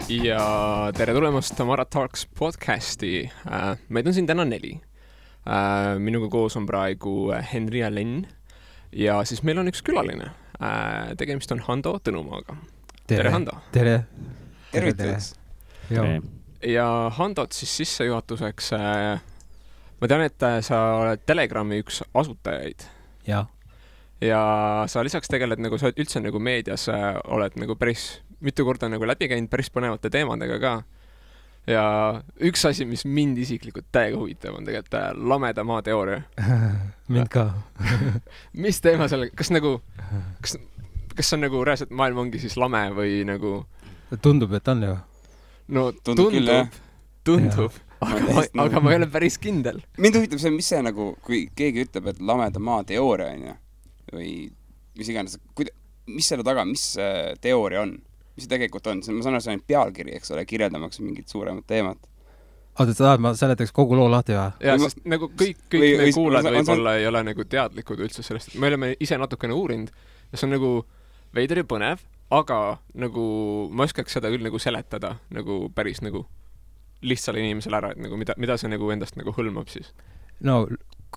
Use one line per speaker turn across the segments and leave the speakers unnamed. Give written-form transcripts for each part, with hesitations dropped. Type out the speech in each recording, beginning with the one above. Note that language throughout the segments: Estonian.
Ja tere tulemast Tamara Talks podcasti. Meid on siin täna 4. Minuga koos on praegu Henri ja Len. Ja siis meil on üks külaline. Tegemist on Hando Tõnumaaga. Tere Hando.
Tere.
Tervitus.
Ja Handot siis sissejuhatuseks. Ma tean, et sa oled Telegrami üks asutajaid.
Ja
sa lisaks tegeled, nagu sa üldse nagu meedias oled nagu päris mitu korda nagu läbi käinud päris põnevate teemadega ka. Ja üks asi, mis mind isiklikult täiega huvitab, on tegelikult lameda maa teooria.
Mind ka.
Mis teema selle, kas on nagu reaalselt maailm ongi siis lame või nagu...
Tundub, et on ju.
No tundub. Aga ma ei ole päris kindel.
Mind huvitab see, mis see nagu, kui keegi ütleb, et lameda maa teooria on ju, või mis iganes, mis selle taga, mis teooria on? Mis see tegelikult on? Ma saan aru, see on pealkiri, eks ole, kirjeldamaks mingit suuremat teemat.
Oota, sa tahad, ma seletaks kogu loo lahti või?
Ja, sest nagu kõik me kuulad võib-olla ei ole nagu teadlikud üldse sellest. Me oleme ise natukene uurinud ja see on nagu veider ja põnev, aga nagu ma oskaks seda küll nagu seletada nagu päris nagu lihtsale inimesele ära, et nagu mida see nagu endast nagu hõlmab siis?
No,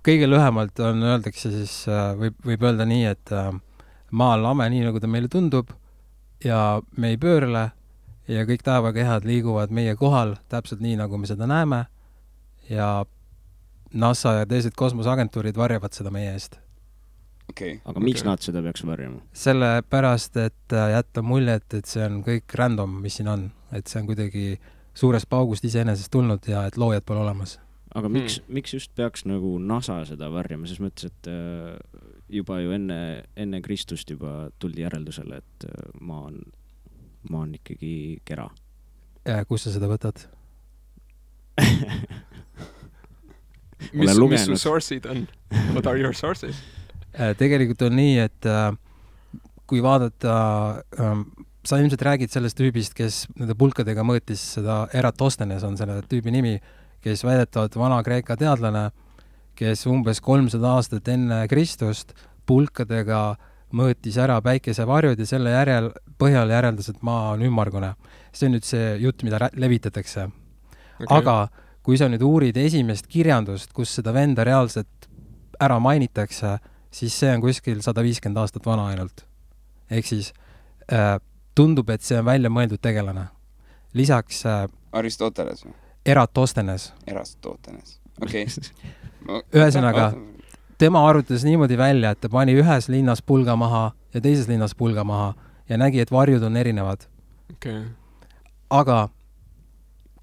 kõige lühemalt on öeldakse siis, võib öelda nii, et maa on lame nii, nagu ta meile tundub ja me ei pöörle ja kõik taevakehad liiguvad meie kohal täpselt nii, nagu me seda näeme ja NASA ja teised kosmoseagentuurid varjavad seda meie eest.
Aga miks nad seda peaks varjama?
Sellepärast, et jätta muljet, et see on kõik random, mis siin on. Et see on kuidagi suurest paugust iseenesest tulnud ja et loojad pole olemas.
Aga miks just peaks nagu NASA seda varjama? Ses mõttes, et juba ju enne Kristust juba tuldi järeldusele, et maa on ikkagi kera.
Kus sa seda võtad?
Mis su source'id on? What are your sources?
Tegelikult on nii, et kui vaadata, sa ilmselt räägid sellest tüübist, kes nende pulkadega mõõtis seda Eratosthenes on selle tüübi nimi, kes väidetavad Vana-Kreeka teadlane, kes umbes 300 aastat enne Kristust pulkadega mõõtis ära päikesevarjud ja selle põhjal järeldas, et maa on ümmargune. See on nüüd see jutt, mida levitatakse. Okay. Aga kui sa nüüd uurid esimest kirjandust, kus seda venda reaalselt ära mainitakse, siis see on kuskil 150 aastat vana ainult. Ehk siis tundub, et see on välja mõeldud tegelane. Lisaks
Aristoteles või?
Eratosthenes.
Okei.
Ühesõnaga, tema arvutas niimoodi välja, et ta pani ühes linnas pulga maha ja teises linnas pulga maha ja nägi, et varjud on erinevad.
Okay.
Aga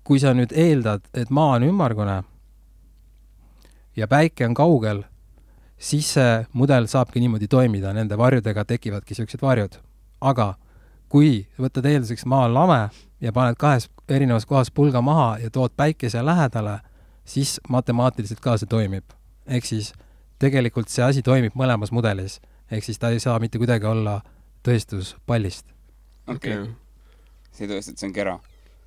kui sa nüüd eeldad, et maa on ümmargune ja päike on kaugel, siis see mudel saabki niimoodi toimida, nende varjudega tekivadki sellised varjud. Aga kui võtad eelduseks maa on lame ja paned 2 erinevas kohas pulga maha ja tood päikese lähedale, siis matemaatiliselt ka see toimib. Ehk siis tegelikult see asi toimib mõlemas mudelis. Ehk siis ta ei saa mitte kuidagi olla tõestus pallist.
Okay. See tõestab, et see on kera.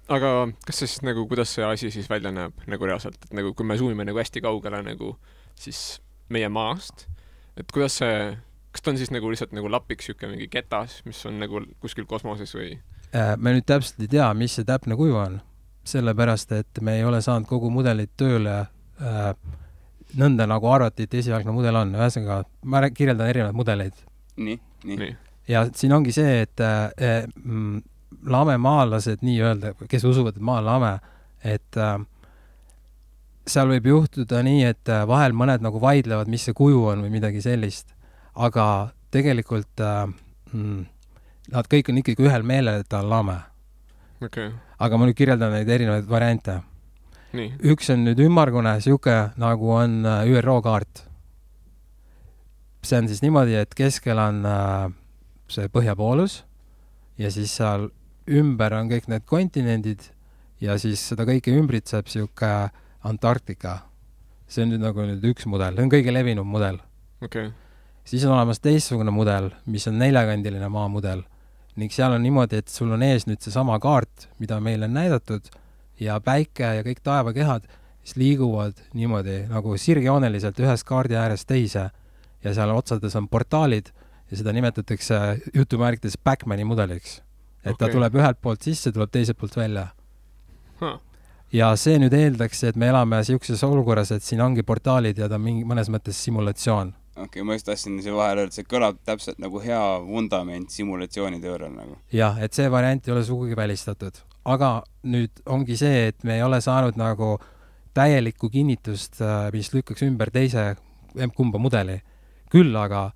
Aga kas see siis nagu, kuidas see asi siis välja näeb nagu reaalselt? Et nagu, kui me zoomime nagu hästi kaugele nagu siis meie maast, et kuidas see, kas ta on siis nagu lihtsalt nagu lapiks siuke mingi ketas, mis on nagu kuskil kosmoses või?
Me nüüd täpselt ei tea, mis see täpne kuju on. Sellepärast, et me ei ole saanud kogu mudelit tööle nõnda nagu arvati, et esialgne mudel on. Ühesõnaga, ma kirjeldan erinevaid mudeleid.
Nii.
Ja siin ongi see, et lamemaalased nii öelda, kes usuvad, et maa on lame, et seal võib juhtuda nii, et vahel mõned nagu vaidlevad, mis see kuju on või midagi sellist. Aga tegelikult nad kõik on ikkagi ühel meelel, et ta on lame.
Okay.
Aga ma nüüd kirjeldan neid erinevaid variante.
Nii.
Üks on nüüd ümmargune, siuke nagu on ÜRO kaart. See on siis niimoodi, et keskel on see põhjapoolus ja siis seal ümber on kõik need kontinendid ja siis seda kõike ümbritseb siuke Antarktika. See on nüüd nagu üks mudel. See on kõige levinum mudel.
Okay.
Siis on olemas teistsugune mudel, mis on 4-kandiline maamudel. Ning seal on niimoodi, et sul on ees nüüd see sama kaart, mida meile on näidatud ja päike ja kõik taevakehad siis liiguvad niimoodi nagu sirgjooneliselt ühest kaardi äärest teise ja seal otsades on portaalid ja seda nimetatakse jutumärkides Backmani mudeliks. et ta tuleb ühelt poolt sisse, tuleb teiselt poolt välja.
Huh.
Ja see nüüd eeldaks, et me elame siukses olukorras, et siin ongi portaalid ja ta on mingi mõnes mõttes simulatsioon.
Okei, ma just tahtsin see vahel öelda, see kõlab täpselt nagu hea vundament simulatsiooniteoorial nagu.
Jah, et see variant ei ole sugugi välistatud. Aga nüüd ongi see, et me ei ole saanud nagu täielikku kinnitust, mis lükkaks ümber teise kumba mudeli. Küll aga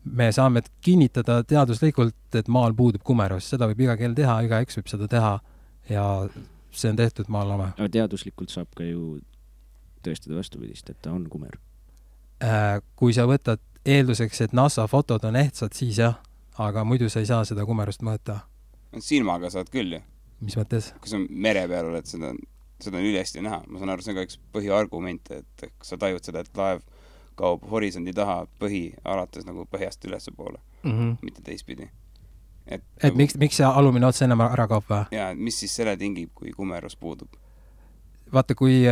me saame kinnitada teaduslikult, et maal puudub kumerus. Seda võib iga kell teha, igaüks võib seda teha ja see on tehtud maal lame.
Aga teaduslikult saab ka ju tõestada vastupidist, et ta on kumer.
Kui sa võtad eelduseks, et NASA fotod on ehtsad, siis jah, aga muidu sa ei saa seda kumerust mõõta.
Silmaga saad küll ju.
Mis mõttes?
Kui sa mere peal oled, seda on ülesti näha. Ma saan aru, see on ka üks põhiargument, et sa tajud seda, et laev kaob horisondi taha põhi alates nagu põhjast ülesse poole, mitte teistpidi.
Et nagu, miks see alumine ots ennem ära kaob või?
Jaa, mis siis selle tingib, kui kumerus puudub?
Vaata, kui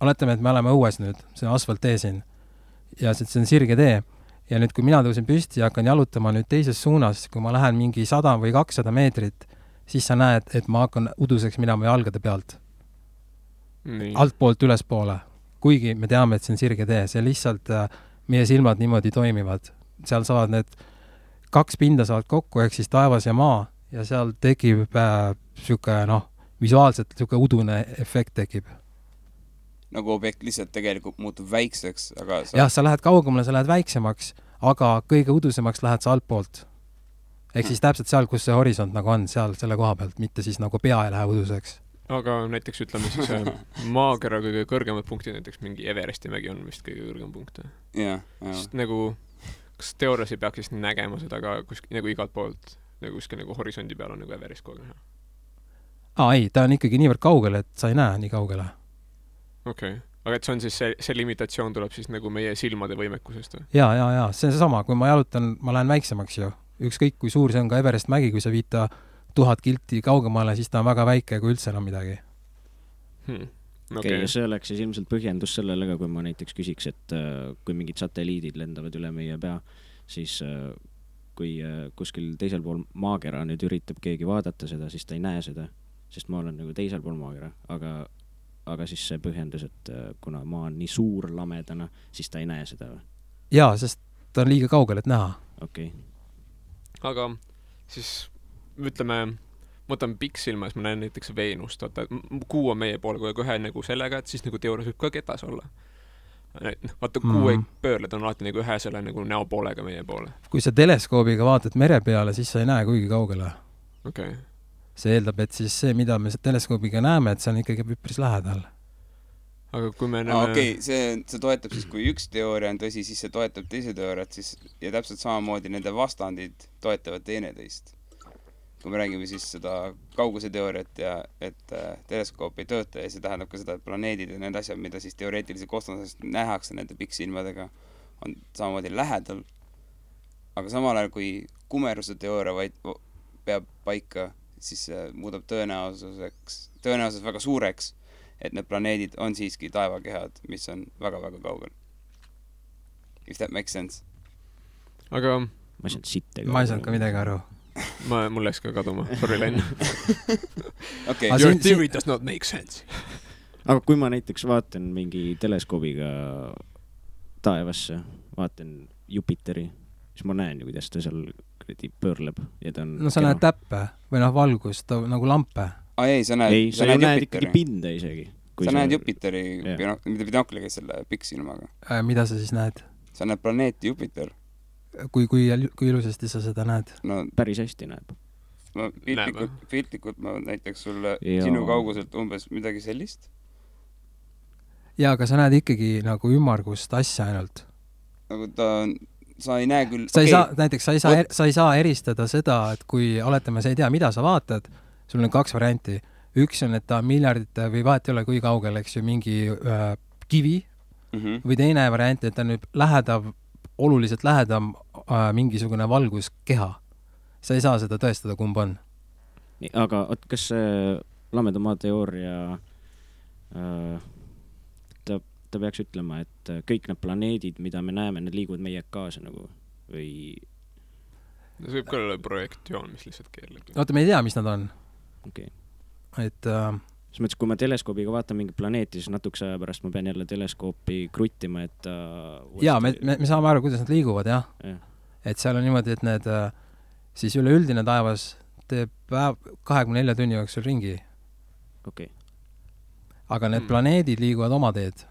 oletame, et me oleme õues nüüd, see on asfalttee siin ja see on sirge tee ja nüüd, kui mina tõusin püsti ja hakkan jalutama nüüd teises suunas, kui ma lähen mingi 100 või 200 meetrit, siis sa näed, et ma hakkan uduseks minema jalgade pealt. Altpoolt ülespoole. Kuigi me teame, et see on sirge tee, see lihtsalt meie silmad niimoodi toimivad. Seal saavad need 2 pinda saavad kokku, ehk siis taevas ja maa ja seal tekib siuke, visuaalselt siuke udune efekt tekib.
Nagu objekt lihtsalt tegelikult muutub väikseks, aga
jah, sa lähed kaugemale, sa lähed väiksemaks, aga kõige udusemaks lähed sa altpoolt. Ehk siis täpselt seal, kus see horisont nagu on, seal selle koha pealt, mitte siis nagu pea ei lähe uduseks.
Aga näiteks ütleme siis maakera kõige kõrgemad punktid, näiteks mingi Everesti mägi on vist kõige kõrgem punkt.
Jah.
Sest nagu, kas teoorias ei peaks siis nägema seda ka nagu igalt poolt, nagu kuskil nagu horisondi peal on nagu Everest kogu näha?
Ei, ta on ikkagi niivõrd kaugele, et sa ei näe nii kaugele.
Okei. Aga et see on siis see limitatsioon tuleb siis nagu meie silmade võimekusest?
Jaa. See on seesama, kui ma jalutan, ma lähen väiksemaks ju. Ükskõik, kui suur see on ka Everest mägi, kui sa viita 1000 kilti kaugemale, siis ta on väga väike, kui üldse enam midagi.
Okay. See oleks siis ilmselt põhjendus sellele ka, kui ma näiteks küsiks, et kui mingid satelliidid lendavad üle meie pea, siis kui kuskil teisel pool maakera nüüd üritab keegi vaadata seda, siis ta ei näe seda, sest ma olen nagu teisel pool maakera, aga siis see põhjendus, et kuna maa on nii suur lamedana, siis ta ei näe seda või?
Jaa, sest ta on liiga kaugel, et näha.
Okei.
Aga siis ütleme, ma võtan pikksilma, siis ma näen näiteks Veenust, vaata, kuu on meie poole kogu ühe nagu sellega, et siis nagu teoorias võib ka ketas olla. Vaata, kuu ei pöörle, ta on alati nagu ühe selle nagu näopoolega meie poole.
Kui sa teleskoobiga vaatad mere peale, siis sa ei näe kuigi kaugele.
Okei.
See eeldab, et siis see, mida me teleskoobiga näeme, et see on ikkagi üpris lähedal.
Aga kui me näeme...
Okei, see toetab siis, kui üks teooria on tõsi, siis see toetab teise teooriat, siis ja täpselt samamoodi nende vastandid toetavad teineteist. Kui me räägime siis seda kauguse teooriat ja et teleskoop ei tööta ja see tähendab ka seda, et planeedid ja need asjad, mida siis teoreetiliselt kosmosest nähakse nende pikksilmadega, on samamoodi lähedal. Aga samal ajal, kui kumeruse teooria peab paika, siis muudab tõenäosus väga suureks, et need planeedid on siiski taevakehad, mis on väga-väga kaugel. If that makes sense.
Aga
ma ei saanud ka midagi aru.
Mul läks ka kaduma. Sorry, Len.
Okay.
Your theory does not make sense.
Aga kui ma näiteks vaatan mingi teleskoobiga taevasse, vaatan Jupiteri, siis ma näen ju, kuidas ta seal pöörleb ja ta on...
No sa näed täppe või valgust, nagu lampe.
Ei, sa näed
ikkagi pinda isegi.
Sa näed Jupiteri, mida binokliga selle pikksilmaga.
Mida sa siis näed?
Sa näed planeeti Jupiter.
Kui ilusasti sa seda näed?
No,
päris hästi näeb.
Piltlikult ma näiteks sulle sinu kauguselt umbes midagi sellist.
Jaa, aga sa näed ikkagi nagu ümmargust asja ainult.
Nagu sa ei näe küll...
Näiteks sa ei saa eristada seda, et kui oletame, sa ei tea, mida sa vaatad, sul on 2 varianti. Üks on, et ta on miljardite või vahet ei ole kui kaugel, eks ju, mingi kivi või teine variant, et ta on nüüd oluliselt lähedam mingisugune valguskeha. Sa ei saa seda tõestada, kumb on.
Nii, aga kas see lameda maa teooria ta peaks ütlema, et kõik need planeedid, mida me näeme, need liiguvad meie kaasa nagu või...
see võib ka olla projektioon, mis lihtsalt keerleb.
oota, me ei tea, mis nad on.
okei.
Et
selles mõttes, kui ma teleskoobiga vaatan mingi planeeti, siis natukese aja pärast ma pean jälle teleskoopi kruttima, et
jaa, me saame aru, kuidas nad liiguvad, jah. Et seal on niimoodi, et need siis üleüldine taevas teeb 24 tunni jooksul ringi.
okei.
Aga need planeedid liiguvad oma teed.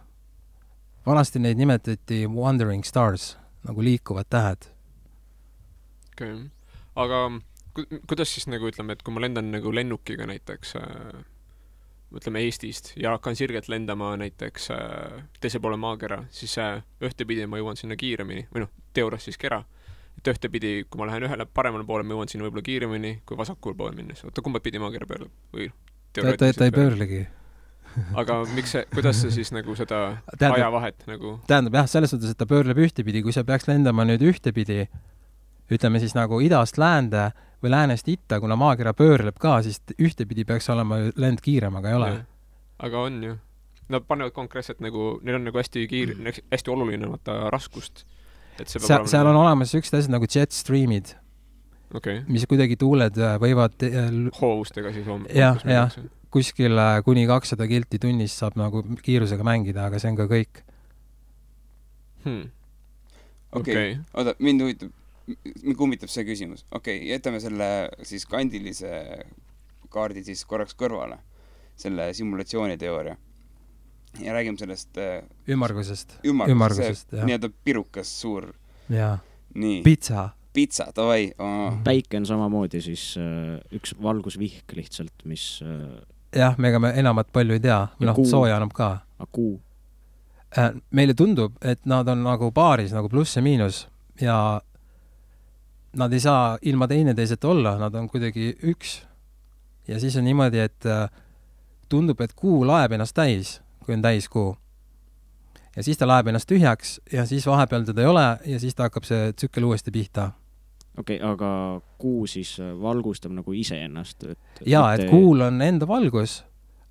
Vanasti neid nimetati wandering stars, nagu liikuvad tähed.
okei. Aga kuidas siis nagu ütleme, et kui ma lendan nagu lennukiga näiteks ütleme Eestist ja hakkan sirgelt lendama näiteks teise poole maakera, siis ühtepidi ma jõuan sinna kiiremini, või teoorias siis kera, et ühtepidi, kui ma lähen ühele paremale poole, ma jõuan sinna võib-olla kiiremini kui vasakul poole minnes. Oota, kumba pidi maakera pöörleb? Või
ta ei pöörlegi.
Aga kuidas see siis nagu seda ajavahet nagu...
Tähendab jah, selles suhtes, et ta pöörleb ühtepidi, kui sa peaks lendama nüüd ühtepidi, ütleme siis nagu idast läände või läänest itta, kuna maakera pöörleb ka, siis ühtepidi peaks olema lend kiirem, aga ei ole.
Aga on ju. Nad panevad konkreetselt nagu, neil on nagu hästi hästi oluline raskust. Et
seal on olemas üksid asjad nagu jet streamid, mis kuidagi tuuled võivad
hoovustega siis
jah, kuskil kuni 200 kilti tunnis saab nagu kiirusega mängida, aga see on ka kõik.
Okei. Oota, mind kummitab see küsimus. Jätame selle siis kandilise kaardi siis korraks kõrvale, selle simulatsiooniteooria. Ja räägime sellest
ümmargusest,
nii-öelda pirukas suur.
Jaa.
Nii. Pitsa, davai.
Päike on samamoodi siis üks valgusvihk lihtsalt, mis...
jah, mega me enamat palju ei tea. Sooja annab ka.
Kuu.
Meile tundub, et nad on nagu paaris, nagu pluss ja miinus ja nad ei saa ilma teineteiseta olla, nad on kuidagi üks. Ja siis on niimoodi, et tundub, et kuu laeb ennast täis, kui on täis kuu. Ja siis ta laeb ennast tühjaks ja siis vahepeal teda ei ole ja siis ta hakkab see tsükkel uuesti pihta.
Okei, aga kuu siis valgustab nagu ise ennast?
Jaa, et kuul on enda valgus,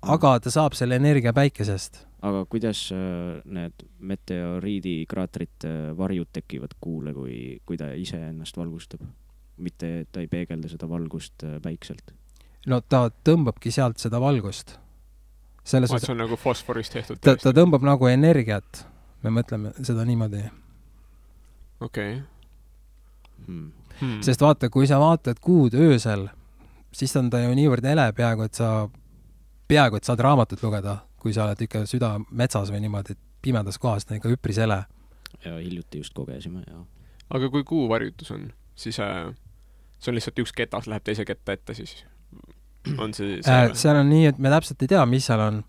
aga ta saab selle energia päikesest.
Aga kuidas need meteoriidikraatrite varjud tekivad kuule, kui ta ise ennast valgustab? Mitte ta ei peegelda seda valgust päikselt?
No ta tõmbabki sealt seda valgust.
See on nagu fosforist tehtud?
Ta tõmbab nagu energiat. Me mõtleme seda niimoodi.
Okei.
Sest vaata, kui sa vaatad kuud öösel, siis on ta ju niivõrd ele peaaegu, et saad raamatut lugeda, kui sa oled ikka süda metsas või niimoodi, et pimedas kohas on ikka üpris ele.
Ja hiljuti just kogesime, jah.
Aga kui kuu varjutus on, siis see on lihtsalt üks ketas läheb teise ketta ette, siis on see...
seal on nii, et me täpselt ei tea, mis seal on.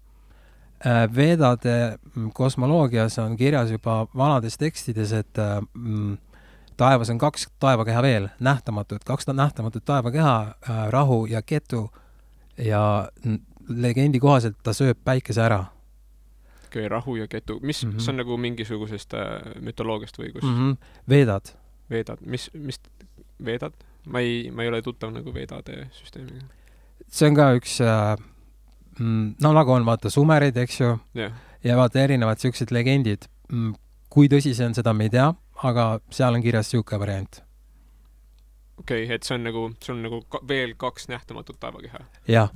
Vedade kosmoloogias on kirjas juba vanades tekstides, et taevas on 2 taevakeha veel, nähtamatud, 2 nähtamatut taevakeha, rahu ja ketu ja legendi kohaselt ta sööb päikese ära.
Okei, rahu ja ketu. See on nagu mingisugusest mütoloogiast või kus?
Vedad.
Vedad. Mis vedad? Ma ei ole tuttav nagu vedade süsteemiga.
See on ka üks, nagu on vaata sumerid, eks ju, ja vaata erinevad sellised legendid. Kui tõsi see on, seda me ei tea, aga seal on kirjas siuke variant.
Okei, et see on nagu veel 2 nähtamatut taevakeha?
Jah.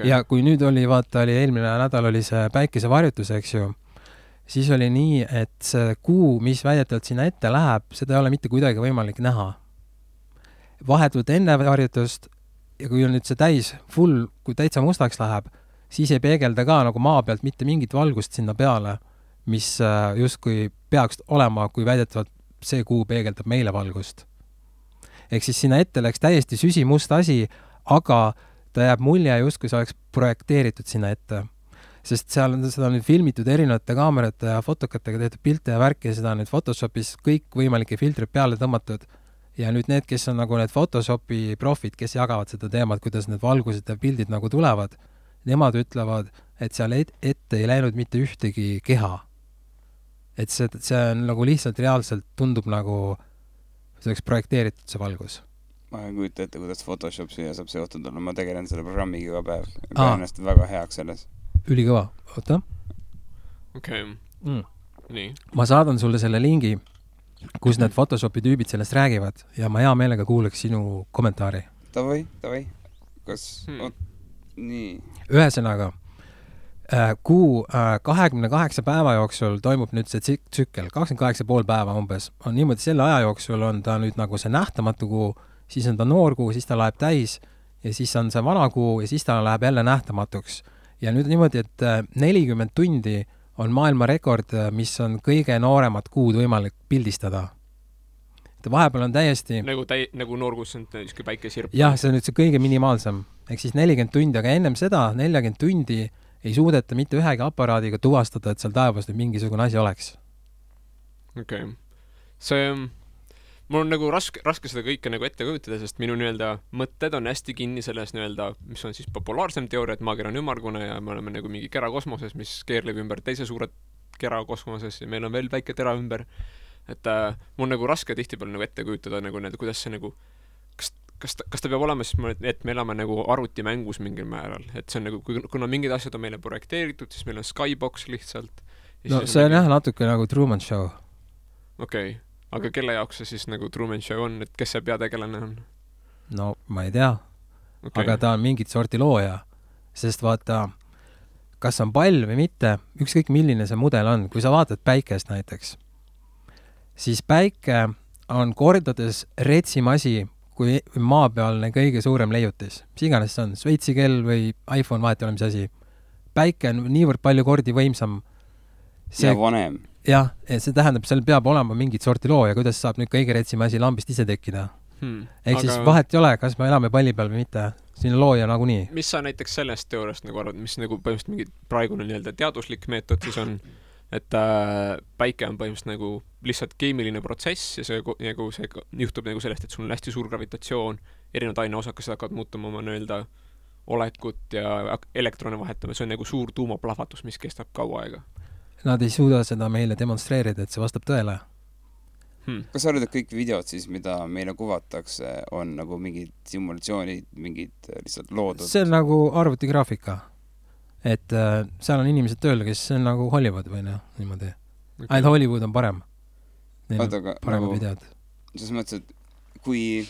Ja kui nüüd oli eelmine nädal oli see päikesevarjutus, eks ju, siis oli nii, et see kuu, mis väidetavalt sinna ette läheb, seda ei ole mitte kuidagi võimalik näha. Vahetult enne varjutust ja kui on nüüd see täis full, kui täitsa mustaks läheb, siis ei peegelda ka nagu maa pealt mitte mingit valgust sinna peale, mis justkui peaks olema, kui väidetavalt see kuu peegeldab meile valgust. Ehk siis sinna ette läks täiesti süsimust asi, aga ta jääb mulje justkui see oleks projekteeritud sinna ette. Sest seal on seda nüüd filmitud erinevate kaamerate ja fotokatega tehtud pilte ja värki ja seda on nüüd Photoshopis kõik võimalike filtrid peale tõmmatud. Ja nüüd need, kes on nagu need Photoshopi profid, kes jagavad seda teemat, kuidas need valgused ja pildid nagu tulevad, nemad ütlevad, et seal ette ei läinud mitte ühtegi keha. Et see on nagu lihtsalt reaalselt tundub nagu see oleks projekteeritud see valgus.
Ma ei kujuta ette, kuidas Photoshop siia saab seotud olla. Ma tegelen selle programmiga iga päev. Pean ennast väga heaks selles.
Ülikõva. Oota.
Okei. Nii.
Ma saadan sulle selle lingi. kus need Photoshopi tüübid sellest räägivad ja ma hea meelega kuuleks sinu kommentaari.
Davai. Kas nii.
Ühesõnaga, kuu 28 päeva jooksul toimub nüüd see tsükkel, 28,5 päeva umbes. On niimoodi, selle aja jooksul on ta nüüd nagu see nähtamatu kuu, siis on ta noor kuu, siis ta läheb täis ja siis on see vana kuu ja siis ta läheb jälle nähtamatuks. Ja nüüd niimoodi, et 40 tundi on maailma rekord, mis on kõige nooremat kuud võimalik pildistada. Vahepeal on täiesti...
Nagu noorkus on kui päikesirp.
Jah, see on nüüd see kõige minimaalsem. Ehk siis 40 tundi, aga ennem seda 40 tundi ei suudeta mitte ühegi aparaadiga tuvastada, et seal taevas nüüd mingisugune asi oleks.
Okei. See... Mul on nagu raske seda kõike nagu ette kujutada, sest minu mõtted on hästi kinni selles mis on siis populaarsem teooria, et maakera on ümmargune ja me oleme nagu mingi kera kosmoses, mis keerleb ümber teise suure kera kosmoses ja meil on veel väike tera ümber. Et mul on nagu raske tihtipeale nagu ette kujutada nagu kuidas see nagu kas ta peab olema siis, et me elame nagu arvutimängus mingil määral, et see on nagu, kuna mingid asjad on meile projekteeritud, siis meil on Skybox lihtsalt.
No see on jah natuke nagu Truman Show.
Okei. Aga kelle jaoks see siis nagu Truman Show on, et kes see peategelane on?
No ma ei tea, aga ta on mingit sorti looja, sest vaata, kas on pall või mitte, ükskõik milline see mudel on, kui sa vaatad päikest näiteks, siis päike on kordades retsim asi kui maapealne kõige suurem leiutis. Mis iganes see on, Šveitsi kell või iPhone, vahet ei ole mis asi. Päike on niivõrd palju kordi võimsam.
Ja vanem.
Jah, see tähendab, seal peab olema mingit sorti loo ja kuidas saab nüüd kõige retsim asi lambist ise tekkida. Ehk siis vahet ei ole, kas me elame palli peal või mitte. Siin on looja nagunii. Mis
sa näiteks sellest teooriast nagu arvad, mis nagu põhimõtteliselt mingi praegune teaduslik meetod siis on, et päike on põhimõtteliselt nagu lihtsalt keemiline protsess ja see juhtub nagu sellest, et sul on hästi suur gravitatsioon, erinevad aineosakesed hakkavad muutuma oma olekut ja elektrone vahetama, see on nagu suur tuumaplahvatus, mis kestab kaua aega.
Nad ei suuda seda meile demonstreerida, et see vastab tõele.
Kas sa arvad, et kõik videod siis, mida meile kuvatakse, on nagu mingid simulatsioonid, mingid lihtsalt loodud?
See on nagu arvutigraafika. Et seal on inimesed tööl, kes on nagu Hollywood või niimoodi. Ainult Hollywood on parem. Neil on parema videod.
Selles mõttes, et kui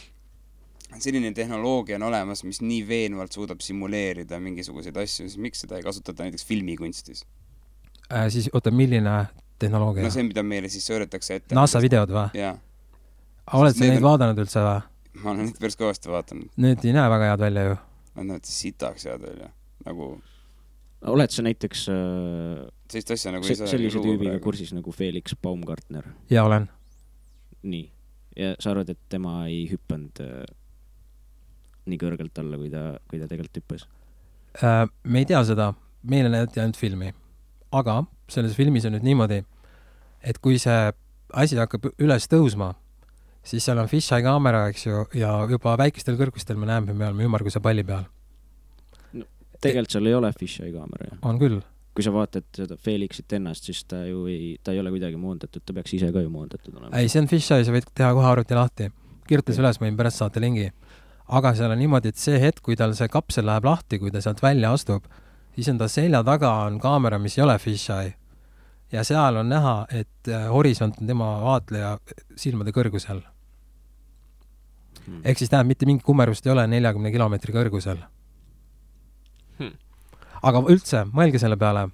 selline tehnoloogia on olemas, mis nii veenvalt suudab simuleerida mingisuguseid asju, siis miks seda ei kasutata näiteks filmikunstis?
Siis oota, milline tehnoloogia?
No see, mida meile siis sõõretakse ette.
NASA videod või?
Jaa.
Oled sa neid vaadanud üldse või?
Ma olen neid päris kõvasti vaatanud.
Need ei näe väga head välja ju.
Nad näevad sitaks head välja. Nagu...
Oled sa näiteks
asja, nagu
sellise tüübiga kursis nagu Felix Baumgartner?
Jaa, olen.
Nii. Ja sa arvad, et tema ei hüppanud nii kõrgelt alla, kui ta tegelikult hüppas?
Me ei tea seda. Meile näidati ainult filmi. Aga selles filmis on nüüd niimoodi, et kui see asi hakkab üles tõusma, siis seal on fisheye kaamera, eks ju, ja juba väikestel kõrgustel me näeme, me oleme ümmarguse palli peal.
No, tegelikult seal ei ole fisheye kaamera.
On küll.
Kui sa vaatad seda Felixit ennast, siis ta ei ole kuidagi moondatud, ta peaks ise ka ju moondatud olema.
Ei, see on fisheye, sa võid teha kohe arvuti lahti. Kirjutas üles, võin pärast saate lingi. Aga seal on niimoodi, et see hetk, kui tal see kapsel läheb lahti, kui ta sealt välja astub, siis on ta selja taga on kaamera, mis ei ole fisheye. Ja seal on näha, et horisont on tema vaatleja silmade kõrgusel. Ehk siis tähendab, mitte mingi kummerust ei ole 40 kilomeetri kõrgusel. Aga üldse, mõelge selle peale.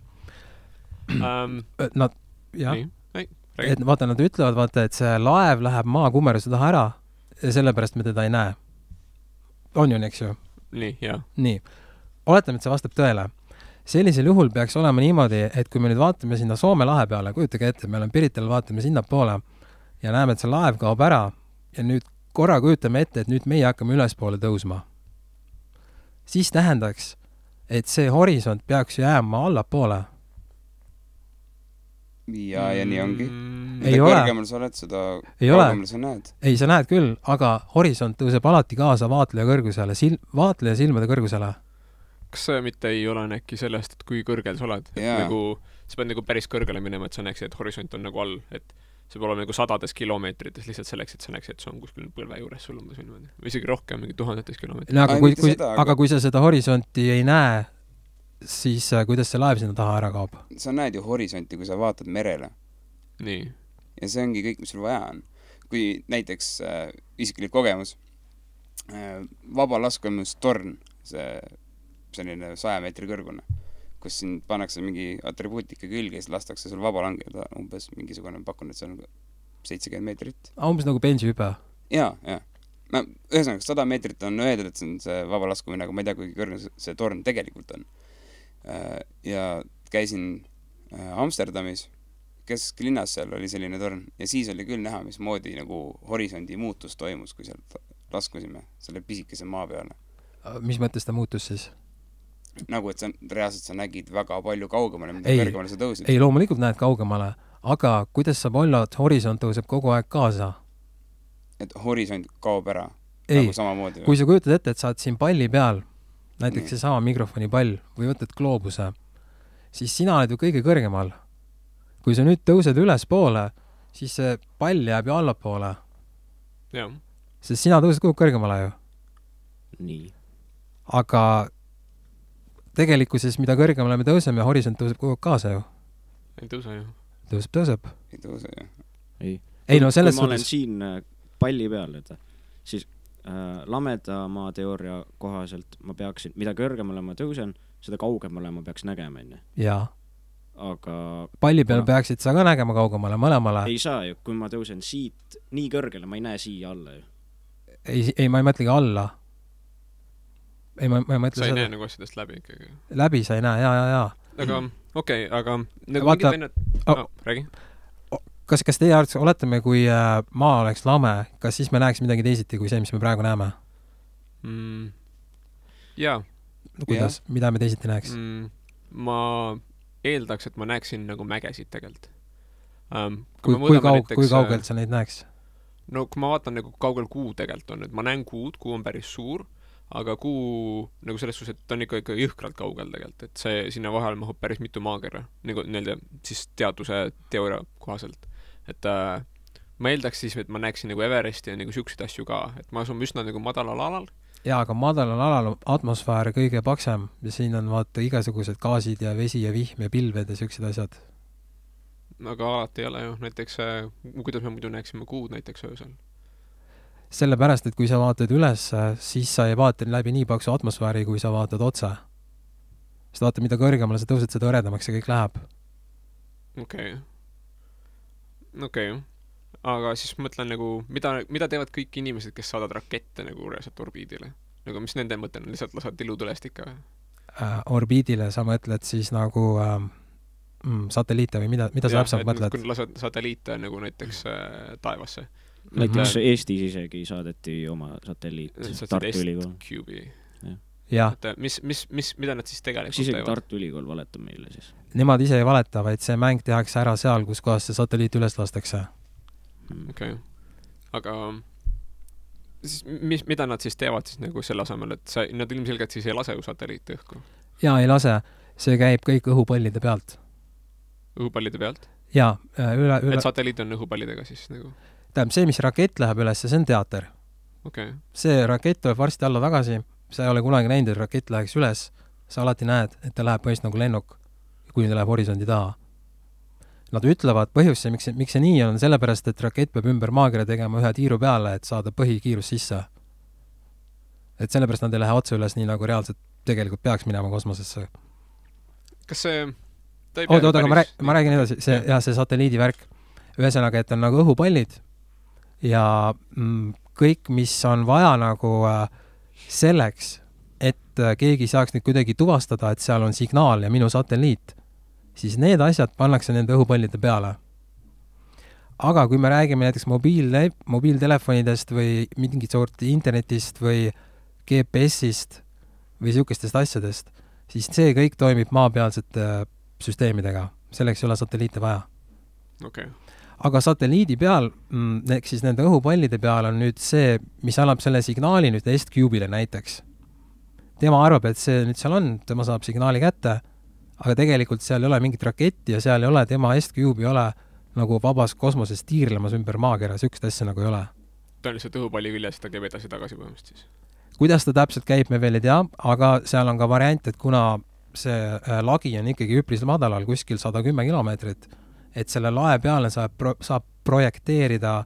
Nad, jah, et vaata, nad ütlevad, vaata, et see laev läheb maa kummeruse taha ära ja sellepärast me teda ei näe. On ju, eks ju?
Nii, jah.
Nii. Oletame, et see vastab tõele. Sellisel juhul peaks olema niimoodi, et kui me nüüd vaatame sinna Soome lahe peale, kujutage ette, me oleme Pirital, vaatame sinna poole ja näeme, et see laev kaob ära ja nüüd korra kujutame ette, et nüüd meie hakkame ülespoole tõusma. Siis tähendaks, et see horisont peaks jääma allapoole.
Ja nii ongi.
Ei
mida
ole.
Kõrgemal sa oled, seda
kaugemal
sa näed.
Ei, sa näed küll, aga horisont tõuseb alati kaasa vaatleja kõrgusele, vaatleja silmade kõrgusele.
Kas see mitte ei ole äkki sellest, et kui kõrgel sa oled? Nagu, sa pead nagu päris kõrgele minema, et sa näeksid, et horisont on nagu all, et see peab olema nagu 100 kilomeetrites lihtsalt selleks, et sa näeksid, et see on kuskil põlve juures sul umbes või isegi rohkem, mingi 1000 kilomeetrit.
Aga kui sa seda horisonti ei näe, siis kuidas see laev sinna taha ära kaob?
Sa näed ju horisonti, kui sa vaatad merele.
Nii.
Ja see ongi kõik, mis sul vaja on. kui näiteks isiklik kogemus, vabalaskumistorn, selline 100 meetri kõrgune, kus siin pannakse mingi atribuutika külge ja siis lastakse sul vaba langeda umbes mingisugune, pakun, et see on 70 meetrit.
Umbes nagu bensihüpe.
Jaa. No, ühesõnaga, 100 meetrit on öeldud, et see on see vaba laskumine, aga ma ei tea, kui kõrge see torn tegelikult on. Ja käisin Amsterdamis, kesklinnas seal oli selline torn ja siis oli küll näha, mismoodi nagu horisondi muutus toimus, kui sealt laskusime selle pisikese maa peale.
Mis mõttes ta muutus siis?
Nagu, et reaalselt sa nägid väga palju kaugemale, mida kõrgemale sa tõusid.
Ei, loomulikult näed kaugemale, aga kuidas saab olla, et horisont tõuseb kogu aeg kaasa?
Et horisont kaob ära?
Ei,
nagu samamoodi,
kui sa kujutad ette, et sa oled siin palli peal, näiteks see sama mikrofoni pall või võtad gloobuse, siis sina oled ju kõige kõrgemal. Kui sa nüüd tõused üles poole, siis see pall jääb ju allapoole.
Jah.
Sest sina tõused kogu kõrgemale ju.
Nii.
Aga tegelikkuses, mida kõrgemale me tõuseme, horisont tõuseb kogu kaasa ju.
Ei tõuse ju.
Tõuseb.
Ei tõuse ju.
Ei, no selles
kui ma olen siin palli peal, siis lameda maa teooria kohaselt ma peaksin, mida kõrgemale ma tõusen, seda kaugemale ma peaks nägema enne.
Jaa.
Aga
palli peal peaksid sa ka nägema kaugemale, mõlemale.
Ei saa ju, kui ma tõusen siit nii kõrgele, ma ei näe siia alla ju.
Ei, ma ei mõtlegi alla. Ei, ma ei mõtle
sa ei
seda.
näe nagu asjadest läbi ikkagi.
Läbi sa ei näe, jaa.
Aga okei, aga nagu
Vaata,
mingid vennad... räägi.
Kas teie arvates, oletame, kui maa oleks lame, kas siis me näeks midagi teisiti kui see, mis me praegu näeme?
Jaa.
Kuidas? Mida me teisiti näeks?
Ma eeldaks, et ma näeksin nagu mägesid tegelikult.
Kui kaugelt sa neid näeks?
No kui ma vaatan nagu kaugel kuu tegelikult on, et ma näen kuud, kuu on päris suur, aga kuu nagu selles suhtes, et on ikka jõhkralt kaugel tegelikult, et see sinna vahel mahub päris mitu maakera, nagu nii-öelda siis teaduse teooria kohaselt. Et ma eeldaks siis, et ma näeksin nagu Everesti ja nagu siukseid asju ka, et ma asun üsna nagu madalal alal.
Jaa, aga madalal alal on atmosfäär kõige paksem ja siin on vaata igasugused gaasid ja vesi ja vihm ja pilved ja siuksed asjad.
Aga alati ei ole ju, näiteks kuidas me muidu näeksime kuud näiteks öösel?
Sellepärast, et kui sa vaatad üles, siis sa ei vaata läbi nii paksu atmosfääri, kui sa vaatad otse. Sest vaata, mida kõrgemale sa tõused, seda õredamaks see kõik läheb.
Okei. Aga siis mõtlen nagu, mida teevad kõik inimesed, kes saadavad rakette nagu reaalselt orbiidile? Nagu mis nende mõte on, lihtsalt lasad ilutulest ikka?
Orbiidile sa mõtled siis nagu satelliite või mida sa täpselt mõtled?
Kui lasad satelliite nagu näiteks taevasse.
Näiteks Eestis isegi saadeti oma satelliit Tartu Ülikool.
Et mida nad siis tegelikult
isegi teevad? Tartu Ülikool valetab meile siis.
Nemad ise ei valeta, vaid see mäng tehakse ära seal, kus kohas see satelliit üles lastakse.
Okei. Aga siis, mida nad siis teevad siis nagu selle asemel, et nad ilmselgelt siis ei lase ju satelliiti õhku?
Jaa, ei lase. See käib kõik õhupallide pealt.
Õhupallide pealt?
Jaa.
Et satelliit on õhupallidega siis nagu?
Tähendab, see, mis rakett läheb üles, see on teater. See rakett tuleb varsti alla tagasi, sa ei ole kunagi näinud, et rakett läheks üles, sa alati näed, et ta läheb põhjust nagu lennuk, kui ta läheb horisondi taha. Nad ütlevad põhjus, miks see nii on, sellepärast, et rakett peab ümber maakera tegema ühe tiiru peale, et saada põhikiirus sisse. Et sellepärast nad ei lähe otse üles nii, nagu reaalselt tegelikult peaks minema kosmosesse.
Kas see...
Oota, ma räägin edasi, see satelliidi värk. Ühesõnaga, et on nagu õhupallid ja kõik, mis on vaja nagu selleks, et keegi saaks nüüd kuidagi tuvastada, et seal on signaal ja minu satelliit, siis need asjad pannakse nende õhupallide peale. Aga kui me räägime näiteks mobiiltelefonidest või mingit sorti internetist või GPS-ist või siukestest asjadest, siis see kõik toimib maapealsete süsteemidega. Selleks ei ole satelliite vaja. Aga satelliidi peal, ehk siis nende õhupallide peal on nüüd see, mis annab selle signaali nüüd S-Cube'ile näiteks. Tema arvab, et see nüüd seal on, tema saab signaali kätte, aga tegelikult seal ei ole mingit raketti ja seal ei ole, tema S-Cube ei ole nagu vabas kosmoses tiirlemas ümber maakera, sükst asja nagu ei ole.
Ta on lihtsalt õhupalli küljes, ta käib edasi-tagasi põhimõtteliselt siis.
Kuidas ta täpselt käib, me veel ei tea, aga seal on ka variant, et kuna see lagi on ikkagi üpris madalal, kuskil 110 kilomeetrit, et selle lae peale saab projekteerida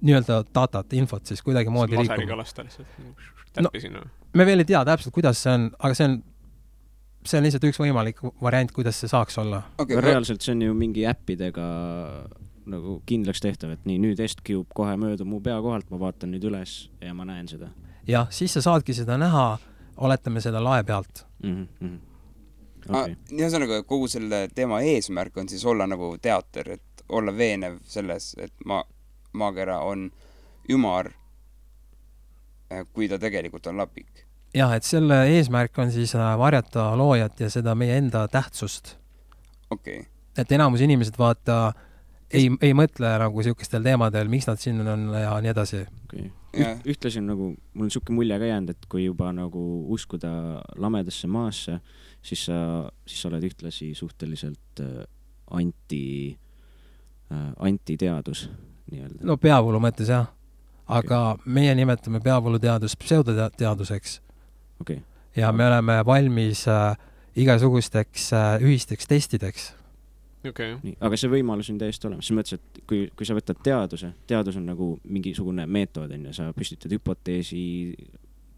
nii-öelda datat, infot siis kuidagi moodi liikuma.
Laserikalasta lihtsalt täppi sinna.
Me veel ei tea täpselt, kuidas see on, aga see on lihtsalt üks võimalik variant, kuidas see saaks olla.
Okay, reaalselt see on ju mingi äppidega nagu kindlaks tehtav, et nii, nüüd S-Cube kohe möödub mu pea kohalt, ma vaatan nüüd üles ja ma näen seda.
Jah, siis sa saadki seda näha, oletame seda lae pealt.
Okay. Ühesõnaga, kogu selle teema eesmärk on siis olla nagu teater, et olla veenev selles, et maakera on ümar, kui ta tegelikult on lapik.
Jah, et selle eesmärk on siis varjata loojat ja seda meie enda tähtsust.
Okay.
Et enamus inimesed vaata ei mõtle nagu siukestel teemadel, miks nad siin on ja nii edasi.
Okay. Ühtlasin nagu, mul on siuke mulje ka jäänud, et kui juba nagu uskuda lamedasse maasse, siis sa oled ühtlasi suhteliselt antiteadus nii-öelda.
No peavoolu mõttes jah, aga meie nimetame peavooluteadust pseudoteaduseks.
Okay.
Ja me oleme valmis igasugusteks ühisteks testideks.
Okay.
Nii, aga see võimalus on täiesti olemas. Selles mõttes, et kui sa võtad teadus on nagu mingisugune meetod, sa püstitad hüpoteesi,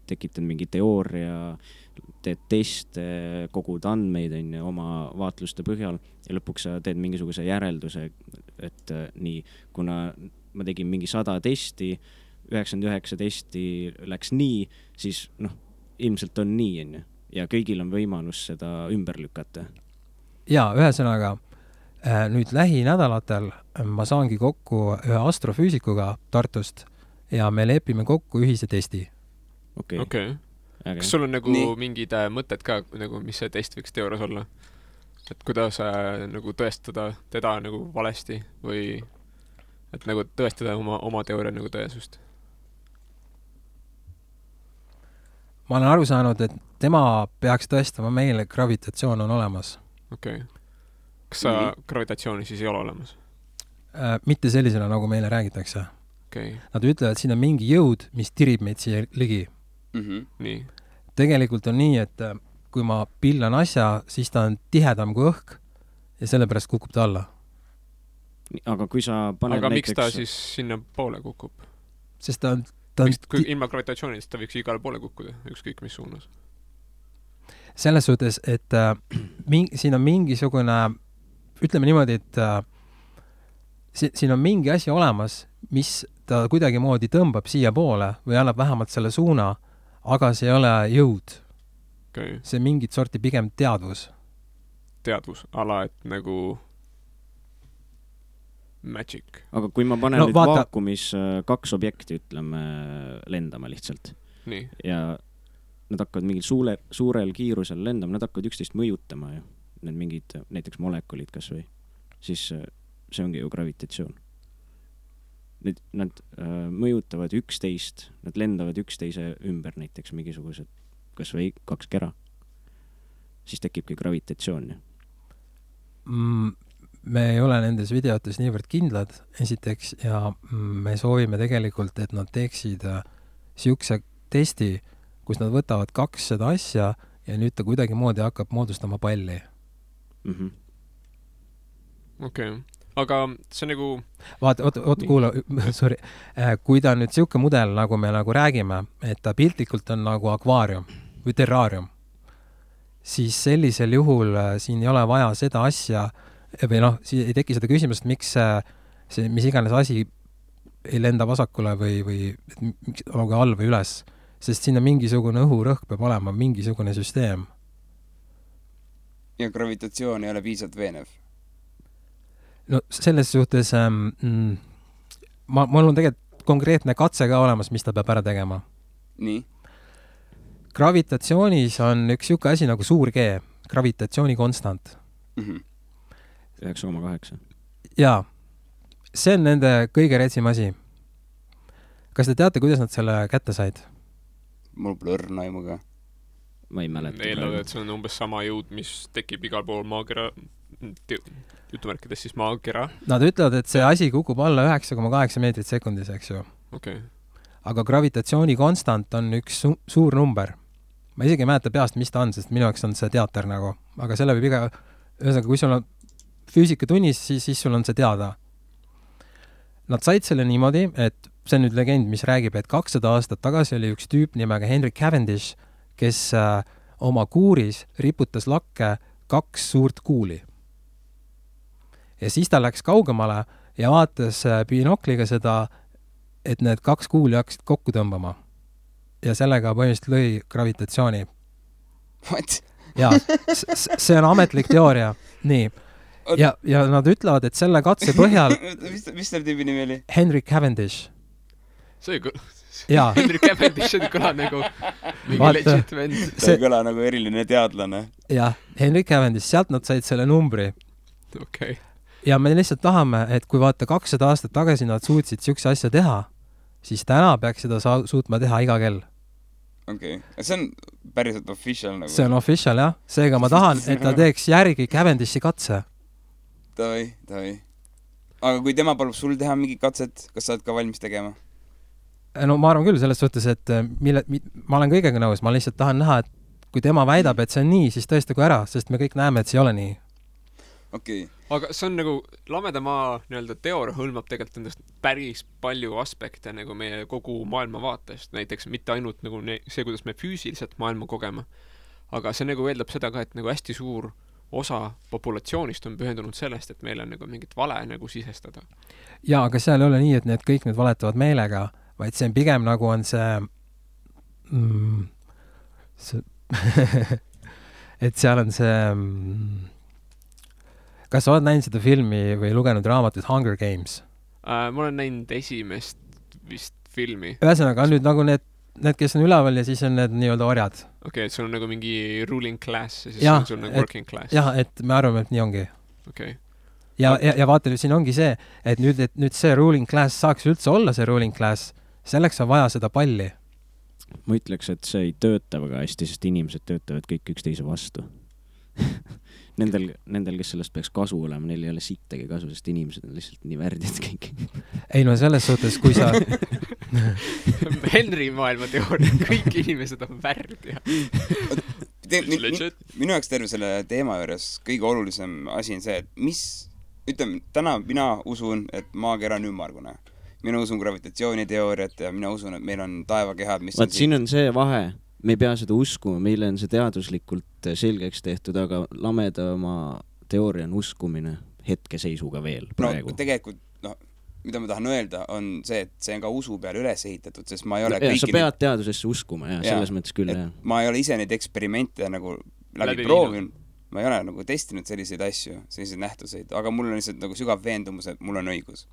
tekitad mingi teooria, teed teste, kogud andmeid oma vaatluste põhjal ja lõpuks sa teed mingisuguse järelduse, et nii, kuna ma tegin mingi 100 testi, 99 testi läks nii, siis ilmselt on nii, ja kõigil on võimalus seda ümber lükata.
Ja, ühesõnaga, nüüd lähinädalatel ma saangi kokku ühe astrofüüsikuga Tartust ja me lepime kokku ühise testi.
Okay. Kas sul on nagu mingid mõtted ka, nagu, mis see test võiks teoorias olla? Et kuidas nagu tõestada teda nagu valesti või et nagu tõestada oma teooria nagu tõesust?
Ma olen aru saanud, et tema peaks tõestama meile, gravitatsioon on olemas.
Okay. Kas sa gravitatsiooni siis ei ole olemas?
Mitte sellisena, nagu meile räägitakse.
Okay.
Nad ütlevad, et siin on mingi jõud, mis tirib meid siia ligi.
Nii.
Tegelikult on nii, et kui ma pillan asja, siis ta on tihedam kui õhk ja sellepärast kukub ta alla.
Aga kui sa paned
näiteks... miks ta siis sinna poole kukub?
Sest ta on
kui ilma gravitatsioonist ta võiks igale poole kukkuda, ükskõik mis suunas.
Selles suhtes, et siin on mingisugune, ütleme niimoodi, et siin on mingi asi olemas, mis ta kuidagi moodi tõmbab siia poole või annab vähemalt selle suuna, aga see ei ole jõud.
Okay.
See mingit sorti pigem teadvus.
Teadvus, ala, et nagu magic.
Aga kui ma panen nüüd vaakumis 2 objekti, ütleme, lendama lihtsalt.
Nii.
Ja nad hakkavad mingil suurel kiirusel lendama, nad hakkavad üksteist mõjutama ju. Need mingid näiteks molekulid kas või. Siis see ongi ju gravitatsioon. Nad mõjutavad üksteist, nad lendavad üksteise ümber näiteks mingisugused, kas või 2 kera. Siis tekibki gravitatsioon.
Me ei ole nendes videotes niivõrd kindlad, esiteks, ja me soovime tegelikult, et nad teeksid siukse testi, kus nad võtavad 2 seda asja ja nüüd ta kuidagi moodi hakkab moodustama palli.
Okay. Aga see nagu...
Oota, kuula, sorry. Kui ta nüüd siuke mudel, nagu me nagu räägime, et ta piltlikult on nagu akvaarium või terraarium, siis sellisel juhul siin ei ole vaja seda asja või ei teki seda küsimust, miks see, mis iganes asi ei lenda vasakule või miks olgu all või üles, sest siin on mingisugune õhurõhk peab olema, mingisugune süsteem.
Ja gravitatsioon ei ole piisavalt veenev?
No selles suhtes mul on tegelikult konkreetne katse ka olemas, mis ta peab ära tegema.
Nii?
Gravitatsioonis on üks siuke asi nagu suur G, gravitatsiooni konstant.
9,8.
Jaa, see on nende kõige retsim asi. Kas te teate, kuidas nad selle kätte said?
Mul pole õrna aimuga.
Ma ei mäleta.
Eeldavad, et see on umbes sama jõud, mis tekib igal pool maakera, jutumärkides siis maakera.
Nad ütlevad, et see asi kukub alla 9,8 meetrit sekundis, eks ju.
Okay.
Aga gravitatsiooni konstant on üks suur number. Ma isegi ei mäleta peast, mis ta on, sest minu jaoks on see teater nagu. Aga selle võib ühesõnaga, kui sul on füüsikatunnis, siis sul on see teada. Nad said selle niimoodi, et see on nüüd legend, mis räägib, et 200 aastat tagasi oli üks tüüp nimega Henry Cavendish, kes oma kuuris riputas lakke 2 suurt kuuli. Ja siis ta läks kaugemale ja vaatas binokliga seda, et need 2 kuuli hakkasid kokku tõmbama. Ja sellega põhimõtteliselt lõi gravitatsiooni.
What?
Jaa, see on ametlik teooria. Nii. Ja nad ütlevad, et selle katse põhjal...
mis selle tüübi nimi oli?
Henry Cavendish.
See Henry Cavendish on kõla nagu mingi legit vend.
See kõla nagu eriline teadlane.
Jah, Henry Cavendish, sealt nad said selle numbri.
Okay.
Ja me lihtsalt tahame, et kui vaata 200 aastat tagasi nad suutsid siukse asja teha, siis täna peaks seda suutma teha iga kell.
Okei. See on päriselt official nagu?
See on official, jah. Seega ma tahan, et ta teeks järgi Cavendishi katse.
Davai. Aga kui tema palub sul teha mingi katset, kas sa oled ka valmis tegema?
No ma arvan küll selles suhtes, et ma olen kõigega nõus, ma lihtsalt tahan näha, et kui tema väidab, et see on nii, siis tõestagu ära, sest me kõik näeme, et see ei ole nii.
Okei.
Aga see on nagu, lameda maa nii-öelda teooria hõlmab tegelikult endast päris palju aspekte nagu meie kogu maailma vaatest, näiteks mitte ainult nagu see, kuidas me füüsiliselt maailma kogeme, aga see nagu eeldab seda ka, et nagu hästi suur osa populatsioonist on pühendunud sellest, et meil on nagu mingit vale nagu sisestada.
Jaa, aga seal ei ole nii, et kõik need valetavad meelega, vaid see on pigem nagu on see et seal on see kas sa oled näinud seda filmi või lugenud raamatut Hunger Games?
Ma olen näinud esimest vist filmi.
Ühesõnaga on nüüd nagu need, kes on üleval ja siis on need nii-öelda orjad.
Okei, et sul on nagu mingi ruling class ja siis on sul nagu working class.
Jah, et me arvame, et nii ongi.
Okei.
Ja vaata, siin ongi see, et nüüd see ruling class saaks üldse olla see ruling class, selleks on vaja seda palli.
Ma ütleks, et see ei tööta väga hästi, sest inimesed töötavad kõik üksteise vastu. Nendel, kes sellest peaks kasu olema, neil ei ole sittagi kasu, sest inimesed on lihtsalt nii värdjad kõik. Ei
no selles suhtes, kui sa...
Henry maailma teooria, kõik inimesed on värdjad.
Minu jaoks terve selle teema juures kõige olulisem asi on see, et täna mina usun, et maakera on ümmargune. Mina usun gravitatsiooniteooriat ja mina usun, et meil on taevakehad, mis
on siin on see vahe. Me ei pea seda uskuma, meile on see teaduslikult selgeks tehtud, aga lamedama teooria on uskumine hetkeseisuga veel praegu.
No tegelikult, mida ma tahan öelda, on see, et see on ka usu peale üles ehitatud, sest ma ei ole kõiki...
Sa pead teadusesse uskuma, selles mõttes küll, jah.
Ma ei ole ise neid eksperimente nagu läbi proovinud, ma ei ole nagu testinud selliseid asju, selliseid nähtuseid, aga mul on lihtsalt nagu sügav veendumus, et mul on õigus.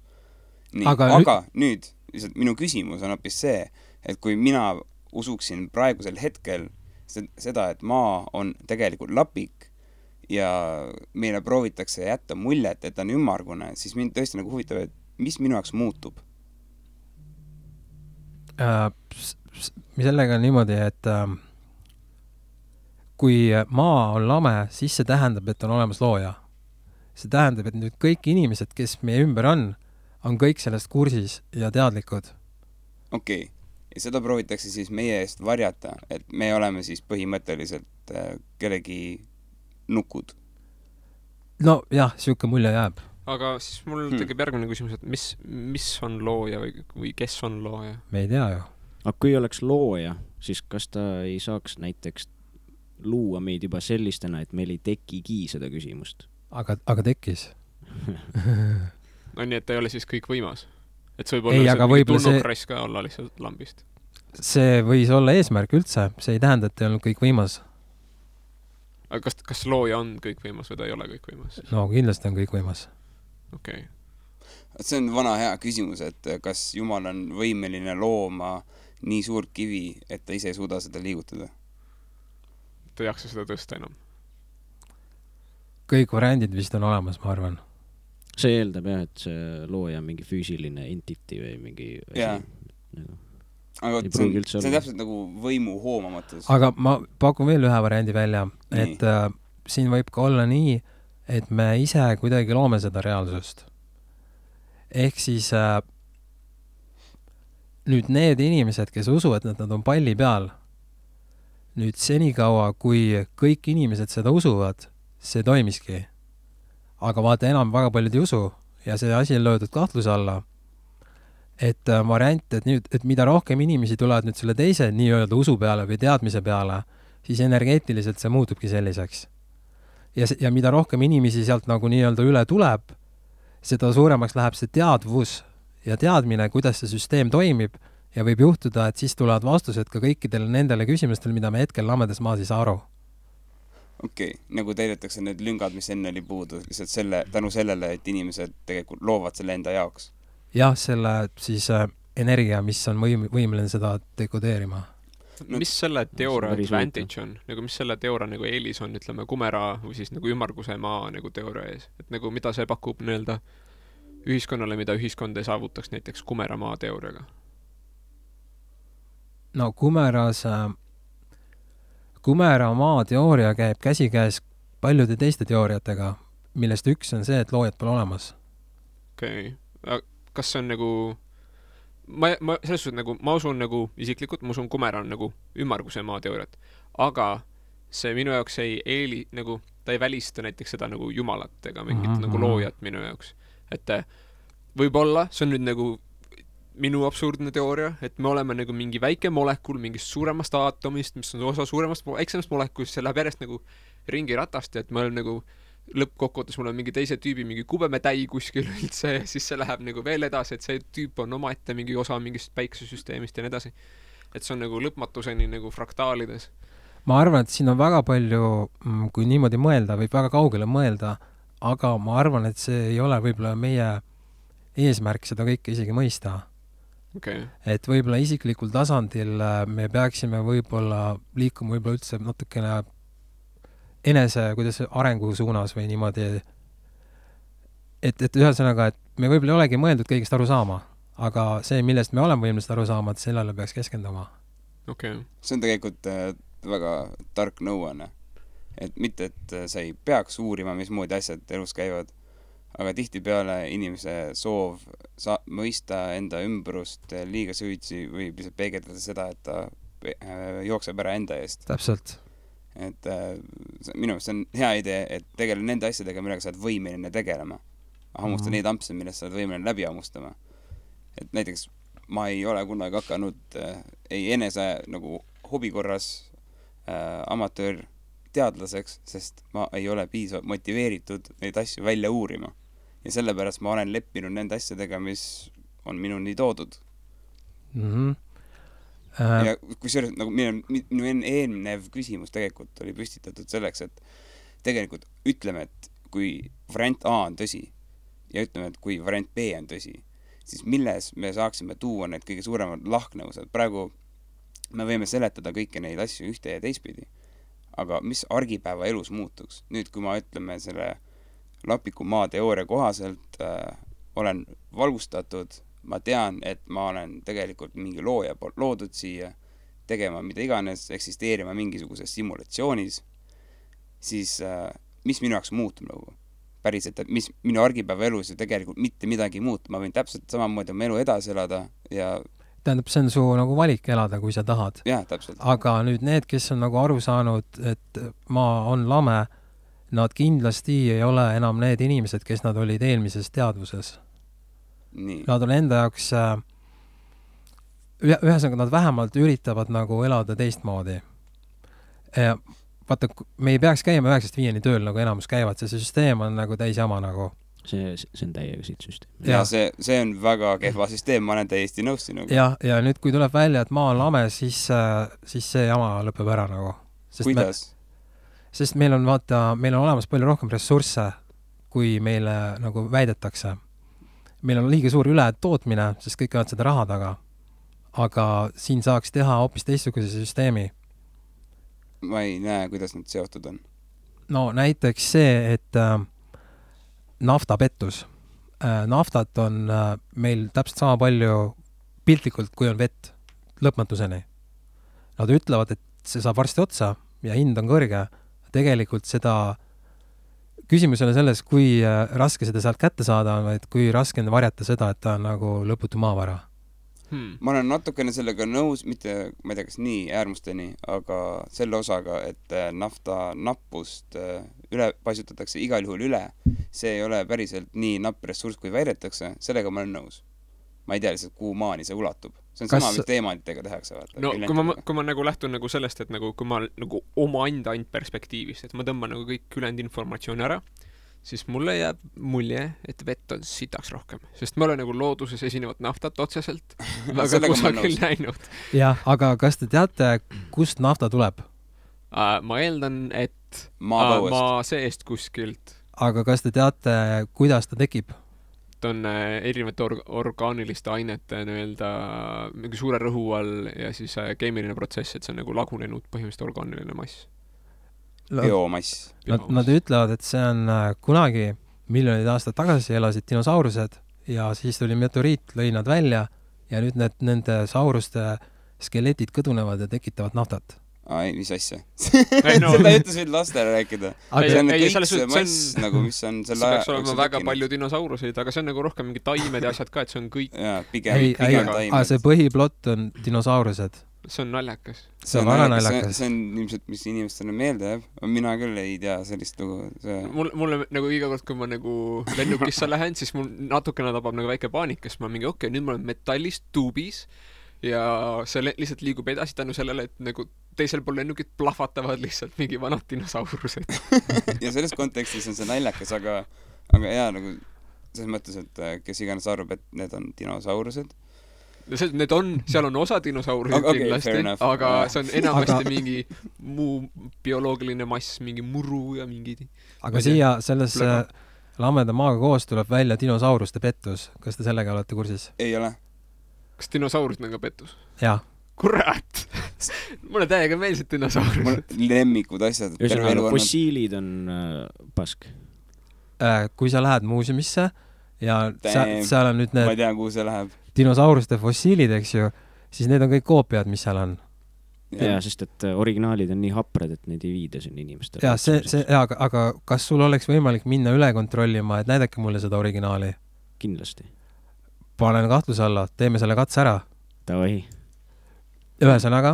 Nii, aga nüüd lihtsalt minu küsimus on hoopis see, et kui mina usuksin praegusel hetkel seda, et maa on tegelikult lapik ja meile proovitakse jätta muljet, et ta on ümmargune, siis mind tõesti nagu huvitab, et mis minu jaoks muutub?
Sellega on niimoodi, et kui maa on lame, siis see tähendab, et on olemas looja. See tähendab, et nüüd kõik inimesed, kes meie ümber on kõik sellest kursis ja teadlikud.
Okei. Ja seda proovitakse siis meie eest varjata, et me oleme siis põhimõtteliselt kellegi nukud.
No jah, siuke mulje jääb.
Aga siis mul tekib järgmine küsimus, et mis on looja või kes on looja?
Me ei tea ju.
Aga kui oleks looja, siis kas ta ei saaks näiteks luua meid juba sellistena, et meil ei tekigi seda küsimust?
Aga tekkis.
No nii, et ta ei ole siis kõik võimas? Et see võib olla mingi tulnukrass ka olla lihtsalt lambist.
See võis olla eesmärk üldse. See ei tähenda, et ei olnud kõik võimas.
Aga kas looja on kõik võimas või ta ei ole kõik võimas?
No kindlasti on kõik võimas.
Okei.
See on vana hea küsimus, et kas Jumal on võimeline looma nii suurt kivi, et ta ise ei suuda seda liigutada?
Ta ei jaksa seda tõsta enam.
Kõik variandid vist on olemas, ma arvan.
See eeldab jah, et see looja on mingi füüsiline entity või mingi asi.
Aga see on täpselt nagu võimu hoomamatus.
Aga ma pakun veel ühe variandi välja, et siin võib ka olla nii, et me ise kuidagi loome seda reaalsust. Ehk siis nüüd need inimesed, kes usuvad, et nad on palli peal, nüüd senikaua, kui kõik inimesed seda usuvad, see toimiski. Aga vaata enam väga paljud ei usu ja see asi on löödud kahtluse alla. et variant, et nüüd, et mida rohkem inimesi tulevad nüüd selle teise nii-öelda usu peale või teadmise peale, siis energeetiliselt see muutubki selliseks. Ja mida rohkem inimesi sealt nagu nii-öelda üle tuleb, seda suuremaks läheb see teadvus ja teadmine, kuidas see süsteem toimib ja võib juhtuda, et siis tulevad vastused ka kõikidele nendele küsimustele, mida me hetkel lamedas maas ei saa aru.
Okei, nagu täidetakse need lüngad, mis enne oli puudu, lihtsalt tänu sellele, et inimesed tegelikult loovad selle enda jaoks.
Jah, selle siis energia, mis on võimeline seda dekodeerima.
No, mis selle teooria advantage on? Nagu mis selle teooria nagu eelis on, ütleme, kumera või siis nagu ümmarguse maa nagu teooria ees? Et nagu mida see pakub nii-öelda ühiskonnale, mida ühiskond ei saavutaks näiteks kumera maa teooriaga?
No kumera maa teooria käib käsikäes paljude teiste teooriatega, millest üks on see, et loojad pole olemas.
Okei. Kas see on nagu ma selles suhtes nagu ma usun nagu isiklikult, ma usun kumera on nagu ümmarguse maa teooriat, aga see minu jaoks ei nagu ta ei välista näiteks seda nagu jumalat ega mingit nagu loojat minu jaoks. Et võib-olla see on nüüd nagu minu absurdne teooria, et me oleme nagu mingi väike molekul mingist suuremast aatomist, mis on osa suuremast, väiksemast molekulist, see läheb järjest nagu ringi ratast, et me oleme nagu lõppkokkuvõttes mul on mingi teise tüübi mingi kubemetäi kuskil üldse ja siis see läheb nagu veel edasi, et see tüüp on omaette mingi osa mingist päiksesüsteemist ja nii edasi. Et see on nagu lõpmatuseni nagu fraktaalides.
Ma arvan, et siin on väga palju, kui niimoodi mõelda, võib väga kaugele mõelda, aga ma arvan, et see ei ole võib-olla meie eesmärk seda kõike isegi mõista.
Okay.
Et võib-olla isiklikul tasandil me peaksime võib-olla liikuma võib-olla üldse natukene enese, kuidas arengu suunas või niimoodi, et ühesõnaga, et me võib-olla ei olegi mõeldud kõigest aru saama, aga see, millest me oleme võimelised aru saama, et sellele peaks keskenduma.
Okay.
See on tegelikult väga tark nõuanne. Et mitte, et sa ei peaks uurima, mismoodi asjad elus käivad, aga tihtipeale inimese soov mõista enda ümbrust liiga süütsi võib lihtsalt peegeldada seda, et ta jookseb ära enda eest.
Täpselt.
Et minu arust see on hea idee, et tegele nende asjadega, millega sa oled võimeline tegelema. Hammusta neid ampse, millest sa oled võimeline läbi hammustama. Et näiteks ma ei ole kunagi hakanud ei enese nagu hobikorras amatöör teadlaseks, sest ma ei ole piisavalt motiveeritud neid asju välja uurima. Ja sellepärast ma olen leppinud nende asjadega, mis on minuni toodud. Ja kui see nagu minu eelnev küsimus tegelikult oli püstitatud selleks, et tegelikult ütleme, et kui variant A on tõsi ja ütleme, et kui variant B on tõsi, siis milles me saaksime tuua need kõige suuremad lahknevused. Praegu me võime seletada kõiki neid asju ühte ja teistpidi, aga mis argipäeva elus muutuks? Nüüd, kui ma ütleme selle lapiku maa teooria kohaselt olen valgustatud, ma tean, et ma olen tegelikult mingi looja poolt loodud siia tegema mida iganes, eksisteerima mingisuguses simulatsioonis, siis mis minu jaoks muutub nagu? Päriselt, et mis minu argipäeva elus ju tegelikult mitte midagi muutub. Ma võin täpselt samamoodi oma elu edasi elada ja
tähendab, see on su nagu valik elada, kui sa tahad.
Jah, täpselt.
Aga nüüd need, kes on nagu aru saanud, et maa on lame, nad kindlasti ei ole enam need inimesed, kes nad olid eelmises teadvuses.
Nii.
Nad on enda jaoks ühesõnaga nad vähemalt üritavad nagu elada teistmoodi. Vaata, me ei peaks käima 9-5 tööl, nagu enamus käivad, see süsteem on nagu täis jama nagu.
See on täiega siit süsteem.
Ja see on väga kehva süsteem, ma olen täiesti nõus sinuga.
Ja nüüd, kui tuleb välja, et maa on lame, siis see jama lõpeb ära nagu.
Kuidas?
Sest meil on olemas palju rohkem ressursse, kui meile nagu väidetakse. Meil on liiga suur ületootmine, sest kõik on seda raha taga. Aga siin saaks teha hoopis teistsuguse süsteemi.
Ma ei näe, kuidas nad seotud on.
No näiteks see, et naftapettus. Naftat on meil täpselt sama palju piltlikult, kui on vett lõpmatuseni. Nad ütlevad, et see saab varsti otsa ja hind on kõrge. Tegelikult seda küsimus on selles, kui raske seda sealt kätte saada on, et kui raske on varjata seda, et ta on nagu lõputu maavara.
Ma olen natukene sellega nõus, mitte, ma ei tea, kas nii äärmusteni, aga selle osaga, et nafta nappust üle paisutatakse igal juhul üle. See ei ole päriselt nii napp ressurss, kui väidetakse. Sellega ma olen nõus. ma ei tea lihtsalt, kuhu maani see ulatub. See on sama, mis teemantidega tehakse.
No kui ma nagu lähtun nagu sellest, et nagu, kui ma nagu oma enda ainult perspektiivist, et ma tõmban nagu kõik ülejäänud informatsiooni ära, siis mulle jääb mulje, et vett on sitaks rohkem. Sest ma olen nagu looduses esinevat naftat otseselt väga kusagil näinud.
Jah, aga kas te teate, kust nafta tuleb?
Ma eeldan, et
maa
seest kuskilt.
Aga kas te teate, kuidas ta tekib?
Ta on erinevate orgaaniliste ainete mingi suure rõhu all ja siis keemiline protsess, et see on nagu lagunenud põhimõtteliselt orgaaniline mass.
Biomass.
Nad ütlevad, et see on kunagi miljonid aastad tagasi elasid dinosaurused ja siis tuli meteoriit, lõi nad välja ja nüüd nende sauruste skeletid kõdunevad ja tekitavad naftat.
Mis asja? Seda ütles võid lastele rääkida. See on kõik see mass, nagu mis on selle
aja. See peaks olema väga palju dinosauruseid, aga see on nagu rohkem mingi taimed ja asjad ka, et see on kõik.
Jaa, pigem taimed.
See põhiplott on dinosaurused.
See on naljakas.
See on väga naljakas.
See on ilmselt, mis inimestele meelde jääb. Mina küll ei tea sellist lugu.
Mulle nagu iga kord, kui ma nagu lennukisse lähen, siis mul natukene tabab nagu väike paanik, kes ma mingi, okei, nüüd ma olen metallist tuubis ja see lihtsalt liigub edasi tänu sellele, et nagu teisel pool lennukid plahvatavad lihtsalt mingi vanad dinosaurused.
Ja selles kontekstis on see naljakas, aga jaa, nagu selles mõttes, et kes iganes arvab, et need on dinosaurused.
Need on, seal on osa dinosaurusid kindlasti, aga see on enamasti mingi muu bioloogiline mass, mingi muru ja mingi...
Aga siia selles lameda maaga koos tuleb välja dinosauruste pettus. Kas te sellega olete kursis?
Ei ole.
Kas dinosaurusid on ka pettus?
Jaa.
Kurat! Mulle täiega meelsid dinosaurused.
Mul lemmikud asjad.
Fossiilid on pask.
Kui sa lähed muuseumisse ja seal on nüüd need...
Ma ei tea, kuhu see läheb.
Dinosauruste fossiilid, eks ju, siis need on kõik koopiad, mis seal on.
Ja, sest et originaalid on nii haprad, et neid ei viida siin inimestele.
Ja, aga kas sul oleks võimalik minna üle kontrollima, et näidake mulle seda originaali?
Kindlasti.
Panen kahtluse alla, teeme selle katse ära.
Tavai.
Ühesõnaga,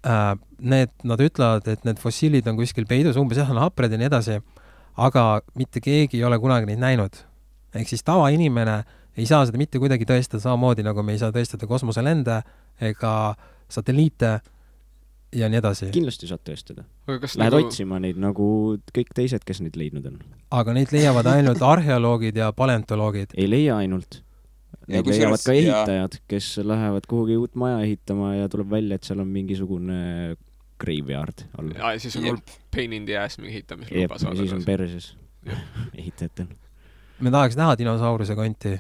nad ütlevad, et need fossiilid on kuskil peidus, umbes on hapred ja nii edasi, aga mitte keegi ei ole kunagi neid näinud. Ehk siis tavainimene ei saa seda mitte kuidagi tõestada samamoodi, nagu me ei saa tõestada kosmoselende ega satelliite ja nii edasi.
Kindlasti saad tõestada. Lähed otsima neid nagu kõik teised, kes neid leidnud on.
Aga neid leiavad ainult arheoloogid ja paleontoloogid.
Ei leia ainult. Neid leiavad ka ehitajad, kes lähevad kuhugi uut maja ehitama ja tuleb välja, et seal on mingisugune graveyard all.
Ja siis on pain in the ass mingi ehitamisluba saada.
Ja siis on perses ehitajatel.
Me tahaks näha dinosauruse konti.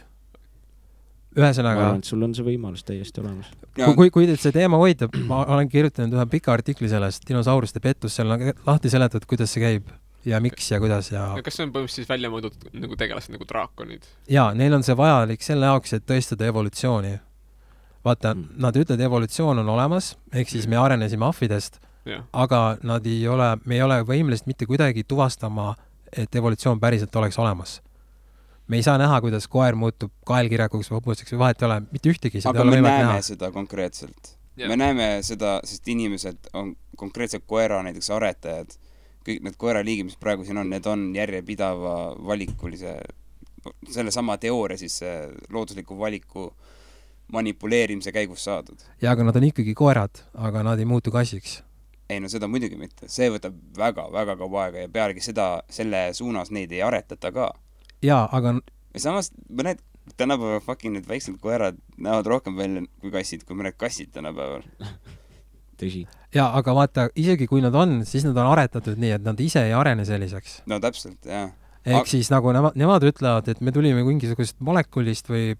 Ühesõnaga...
Ma arvan, et sul on see võimalus täiesti olemas.
Kui teid see teema hoitab, ma olen kirjutanud ühe pika artikli sellest dinosauruste pettus, seal on lahti seletatud, kuidas see käib ja miks ja kuidas ja...
Kas see on põhimõtteliselt välja mõõdud nagu tegelased nagu draakonid?
Jaa, neil on see vajalik selle jaoks, et tõestada evolutsiooni. Vaata, nad ütlevad, evolutsioon on olemas, ehk siis me arenesime ahvidest, aga me ei ole võimelised mitte kuidagi tuvastama, et evolutsioon päriselt oleks olemas. Me ei saa näha, kuidas koer muutub kaelkirjakuks või hobuseks või vahet ei ole, mitte ühtegi.
Aga me näeme seda konkreetselt. Me näeme seda, sest inimesed on konkreetselt koera näiteks aretajad. Kõik need koeraliigid, mis praegu siin on, need on järjepidava valikulise, selle sama teooria siis loodusliku valiku manipuleerimise käigus saadud.
Ja, aga nad on ikkagi koerad, aga nad ei muutu kassiks.
Ei, no seda muidugi mitte. See võtab väga, väga kaua aega ja pealegi selle suunas neid ei aretata ka.
Jaa, aga...
Ja samas, mõned tänapäeval fucking need väiksed koerad näevad rohkem välja kui kassid, kui mõned kassid tänapäeval.
Tõsi.
Jaa, aga vaata, isegi kui nad on, siis nad on aretatud nii, et nad ise ei arene selliseks.
No täpselt, jah.
Ehk siis nagu nemad ütlevad, et me tulime mingisugust molekulist või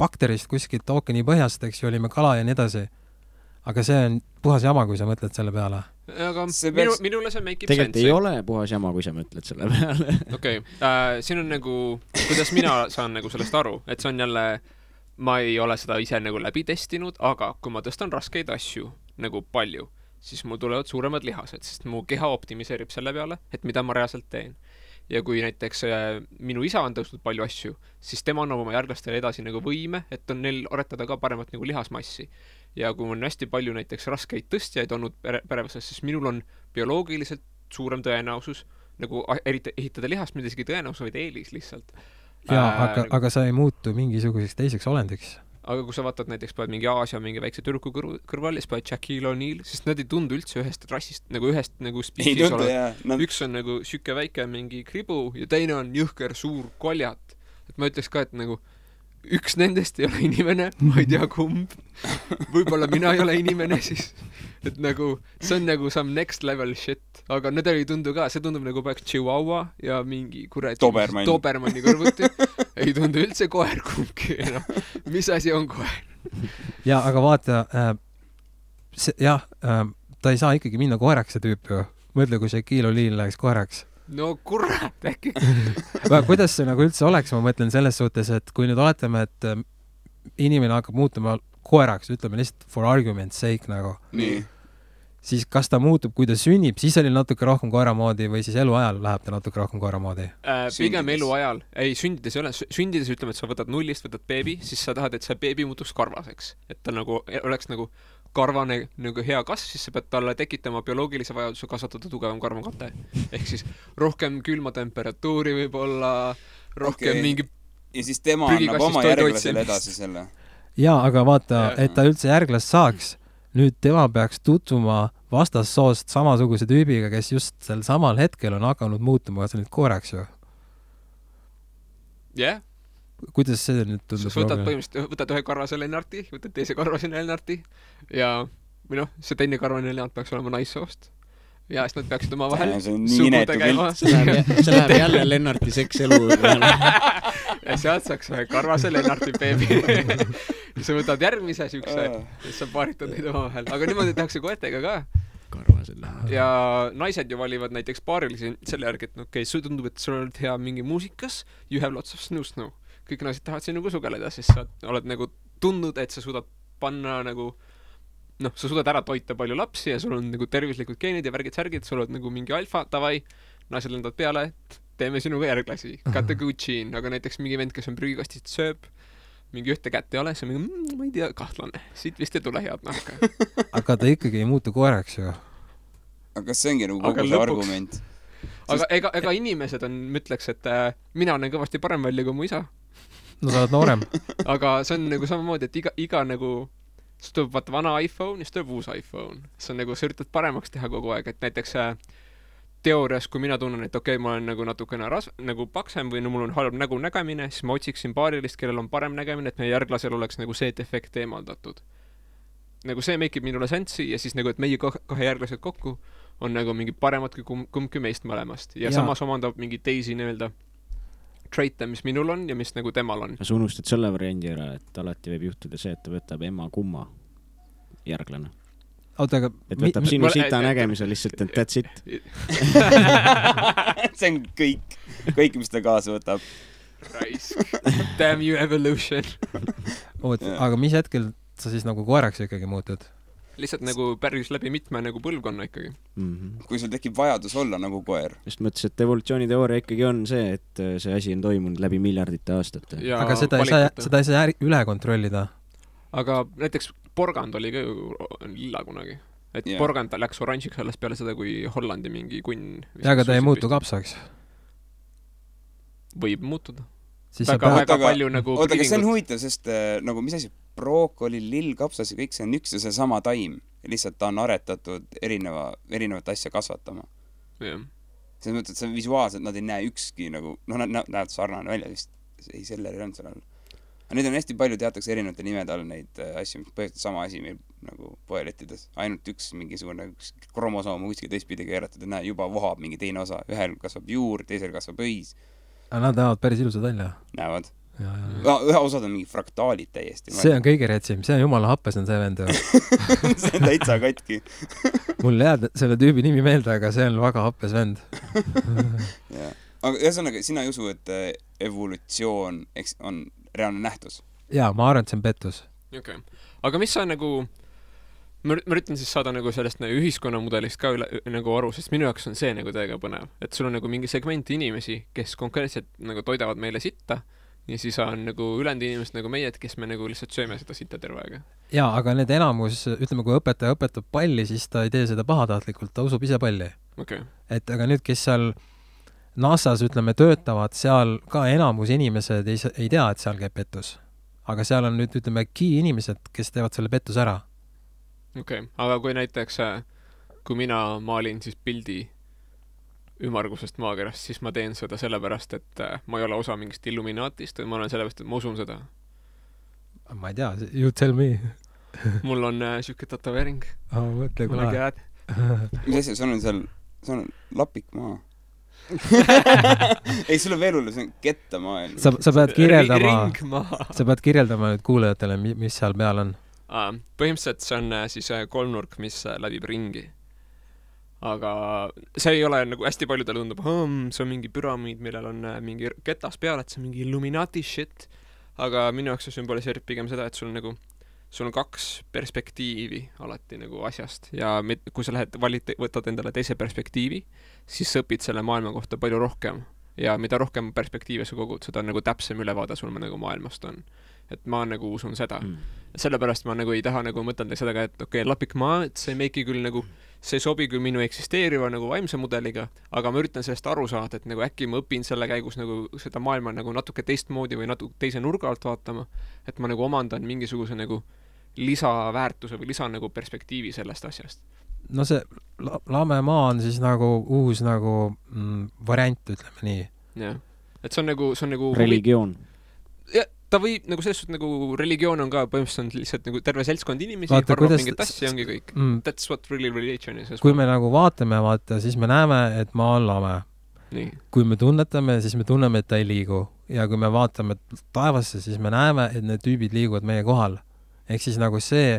bakterist kuskilt ookeani põhjast, eks ju, olime kala ja nii edasi. Aga see on puhas jama, kui sa mõtled selle peale.
Aga minule see make
tegelikult sense. Ei ole puhas jama, kui sa mõtled selle peale.
Okei, siin on nagu, kuidas mina saan nagu sellest aru, et see on jälle, ma ei ole seda ise nagu läbi testinud, aga kui ma tõstan raskeid asju nagu palju, siis mul tulevad suuremad lihased, sest mu keha optimiseerib selle peale, et mida ma reaalselt teen. Ja kui näiteks minu isa on tõstnud palju asju, siis tema annab oma järglastele edasi nagu võime, et on neil aretada ka paremat nagu lihasmassi. Ja kui on hästi palju näiteks raskeid tõstjaid olnud perevõsas, siis minul on bioloogiliselt suurem tõenäosus nagu ehitada lihast, mida isegi tõenäosus, vaid eelis lihtsalt.
jaa, aga sa ei muutu mingisuguseks teiseks olendiks.
Aga kui sa vaatad näiteks paned mingi Aasia mingi väikse tüdruku kõrval ja siis paned Shaquille O'Neal, siis nad ei tundu üldse ühest rassist, nagu ühest nagu spiisis olev. Üks on nagu süke väike mingi kribu ja teine on jõhker suur koljat. Et ma ütleks ka, et nagu üks nendest ei ole inimene, ma ei tea kumb. Võib-olla mina ei ole inimene siis. Et nagu, see on nagu some next level shit. Aga need ei tundu ka, see tundub nagu peaks Chihuahua ja mingi Dobermanni kõrvuti. Ei tundu üldse koer kumbki. No. Mis asi on koer?
Ja, aga vaata, ta ei saa ikkagi minna koeraks see tüüp ju. Mõtle, kui see Shaquille O'Neal läheks koeraks.
No kurat, äkki.
Kuidas see nagu üldse oleks, ma mõtlen selles suhtes, et kui nüüd oletame, et inimene hakkab muutuma koeraks, ütleme lihtsalt for argument's sake nagu.
Nii.
Siis kas ta muutub, kui ta sünnib, siis oli natuke rohkem koeramoodi või siis eluajal läheb ta natuke rohkem koeramoodi?
Pigem eluajal. Ei, sündides ei ole. Sündides ütleme, et sa võtad nullist, võtad beebi, siis sa tahad, et see beebi muutuks karvaseks. Et ta nagu oleks nagu karvane nagu hea kasv, siis sa pead talle tekitama bioloogilise vajaduse kasvatada tugevam karvakate. Ehk siis rohkem külma temperatuuri võib-olla, rohkem mingi
ja siis tema annab oma järglasele edasi selle.
Jaa, aga vaata, et ta üldse järglast saaks, nüüd tema peaks tutvuma vastassoost samasuguse tüübiga, kes just sel samal hetkel on hakanud muutuma nüüd koeraks ju.
Jah.
Kuidas see nüüd tundub?
Võtad ühe karvase Lennarti, võtad teise karvase Lennarti ja see teine karvane Lennart peaks olema naissoost. Ja siis nad peaksid oma vahel sugu tegema.
See läheb jälle Lennarti sekselu.
Ja sealt saaks ühe karvase Lennarti beebi. Ja sa võtad järgmise sükse ja sa paaritad neid oma vahel. Aga niimoodi tehakse koetega ka.
Karvase Lennarti.
Ja naised ju valivad näiteks paarilisi selle järgi, et okei, sul tundub, et sul oled hea mingi muusikas, you have lots of snoo-snoo. Kõik naised tahavad sinuga sugeleda, siis sa oled nagu tundnud, et sa suudad panna nagu sa suudad ära toita palju lapsi ja sul on nagu tervislikud geenid ja värgid-särgid, sul oled nagu mingi alfa, tavai, naised lendavad peale, et teeme sinuga järglasi, got a good gene, aga näiteks mingi vend, kes on prügikastist sööb, mingi ühte kätt ei ole, see on mingi, ma ei tea, kahtlane, siit vist ei tule head nahka.
Aga ta ikkagi ei muutu koeraks ju.
Aga see ongi nagu kogu see argument.
Aga ega inimesed on, mõtleks, et mina olen kõvasti parem välja kui mu isa.
No sa oled noorem.
Aga see on nagu samamoodi, et iga nagu siis tuleb vaata vana iPhone ja siis tuleb uus iPhone. See on nagu, sa üritad paremaks teha kogu aeg, et näiteks teoorias, kui mina tunnen, et okei, ma olen nagu natukene nagu paksem või mul on halb nägemine, siis ma otsiksin paarilist, kellel on parem nägemine, et meie järglasel oleks nagu see defekt eemaldatud. Nagu see make ib minule sensi ja siis nagu, et meie kahe järglased kokku on nagu mingi paremad kui kumbki meist mõlemast. Ja samas omandab mingi teisi nii-öelda traite, mis minul on ja mis nagu temal on.
Sa unustad selle variandi ära, et alati võib juhtuda see, et ta võtab ema kumma järglane.
Oota, aga
et võtab sinu sita nägemise lihtsalt, et that's it.
See on kõik, mis ta kaasa võtab.
Raisk. Damn you evolution.
Aga mis hetkel sa siis nagu koeraks ikkagi muutud?
Lihtsalt nagu päris läbi mitme nagu põlvkonna ikkagi.
Kui sul tekib vajadus olla nagu koer.
Just mõttes, et evolutsiooniteooria ikkagi on see, et see asi on toimunud läbi miljardite aastate.
Aga seda ei saa üle kontrollida.
Aga näiteks porgand oli ka ju lilla kunagi. Et porgand läks oranžiks alles peale seda, kui Hollandi mingi kunn.
Ja aga ta ei muutu kapsaks.
Võib muutuda.
Väga palju nagu... Oota, aga see on huvitav, sest nagu mis asi brookoli, lill, kapsas ja kõik see on üks ja see sama taim. Lihtsalt ta on aretatud erinevat asja kasvatama.
Yeah.
Selles mõttes, et see visuaalselt nad ei näe ükski nagu, nad näevad sarnane välja vist. Ei, sellel ei olnud seal all. Aga nüüd on hästi palju teatakse erinevate nimede all neid asju, mis põhjustab sama asi meil nagu poelettides. Ainult üks mingisugune kromosoom kuskil teistpidi keeratud ja juba vohab mingi teine osa. Ühel kasvab juur, teisel kasvab õis.
Aga nad näevad päris ilusad välja.
Näevad. Ühe osad on mingi fraktaalid täiesti.
See on kõige retsim, see on jumala happes on see vend.
See on täitsa katki.
Mul jääd selle tüübi nimi meelde, aga see on väga happes vend.
Aga ühesõnaga, sina ei usu, et evolutsioon on reaalne nähtus?
Jaa, ma arvan, et see on pettus.
Okay. Aga mis sa nagu... Ma üritan siis saada nagu sellest nagu ühiskonnamudelist ka nagu aru, sest minu jaoks on see nagu täiega põnev. Et sul on nagu mingi segment inimesi, kes konkreetselt nagu toidavad meile sitta ja siis on nagu ülejäänud inimesed nagu meie, kes me nagu lihtsalt sööme seda sitta terve aega.
Jaa, aga need enamus, ütleme, kui õpetaja õpetab palli, siis ta ei tee seda pahatahtlikult, ta usub ise palli.
Okay.
Et aga nüüd, kes seal NASA-s, ütleme, töötavad seal ka enamus inimesed ei tea, et seal käib pettus. Aga seal on nüüd, ütleme, key inimesed, kes teevad selle pettuse ära.
Okei, aga kui näiteks, kui mina maalin siis pildi ümmargusest maakerast, siis ma teen seda sellepärast, et ma ei ole osa mingist Illuminaatist või ma olen sellepärast, et ma usun seda.
Ma ei tea, you tell me.
Mul on siuke tatoveering.
Mõtle, kui lahe.
Mis asja, sul on lapik maa. Ei, sul on veel hullu, see on kettamaa.
Sa pead kirjeldama nüüd kuulajatele, mis seal peal on.
Põhimõtteliselt see on siis kolmnurk, mis läbib ringi. Aga see ei ole nagu hästi paljudele tundub, see on mingi püramiid, millel on mingi ketas peal, et see on mingi Illuminati shit. Aga minu jaoks see sümboliseerib pigem seda, et sul on kaks perspektiivi alati nagu asjast ja kui sa võtad endale teise perspektiivi, siis sa õpid selle maailma kohta palju rohkem ja mida rohkem perspektiive sa kogud, seda nagu täpsem ülevaade sul nagu maailmast on. Et ma nagu usun seda. Sellepärast ma nagu ei taha nagu mõtelda seda ka, et okei, lapik maa, et see meiki küll nagu, see ei sobi küll minu eksisteeriva nagu vaimse mudeliga, aga ma üritan sellest aru saada, et nagu äkki ma õpin selle käigus nagu seda maailma nagu natuke teistmoodi või natuke teise nurga alt vaatama, et ma nagu omandan mingisuguse nagu lisaväärtuse või lisa nagu perspektiivi sellest asjast.
No see lame maa on siis nagu uus nagu variant, ütleme nii.
Jah. Et see on nagu
religioon.
Ja, ta võib nagu selles suhtes nagu religioon on ka põhimõtteliselt lihtsalt nagu terve seltskond inimesi, arvab mingit asja ongi kõik. That's what really religion is.
Kui me nagu vaatame, siis me näeme, et maa on lame.
Nii.
Kui me tunnetame, siis me tunneme, et ta ei liigu. Ja kui me vaatame taevasse, siis me näeme, et need tüübid liiguvad meie kohal. Ehk siis nagu see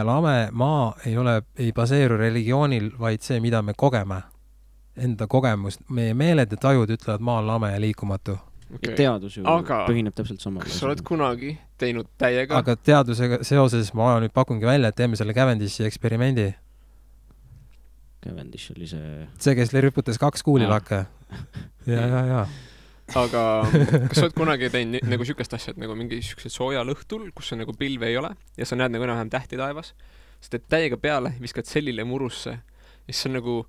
lame maa ei baseeru religioonil, vaid see, mida me kogeme. Enda kogemust. Meie meeled ja tajud ütlevad maa on lame ja liikumatu.
Okay. Ja teadus ju põhineb täpselt sama.
Kas sa oled kunagi teinud täiega?
Aga teadusega seoses ma nüüd pakungi välja, et teeme selle Cavendish'i eksperimendi.
Cavendish oli see...
See, kes rüputas 2 kuulilakke. Ja.
Aga kas sa oled kunagi teinud nagu sükest asja, et nagu mingi sükesed soojal õhtul, kus on nagu pilve ei ole ja sa näed nagu enam tähti taevas, sa teed täiega peale, viskad sellile murusse ja siis on nagu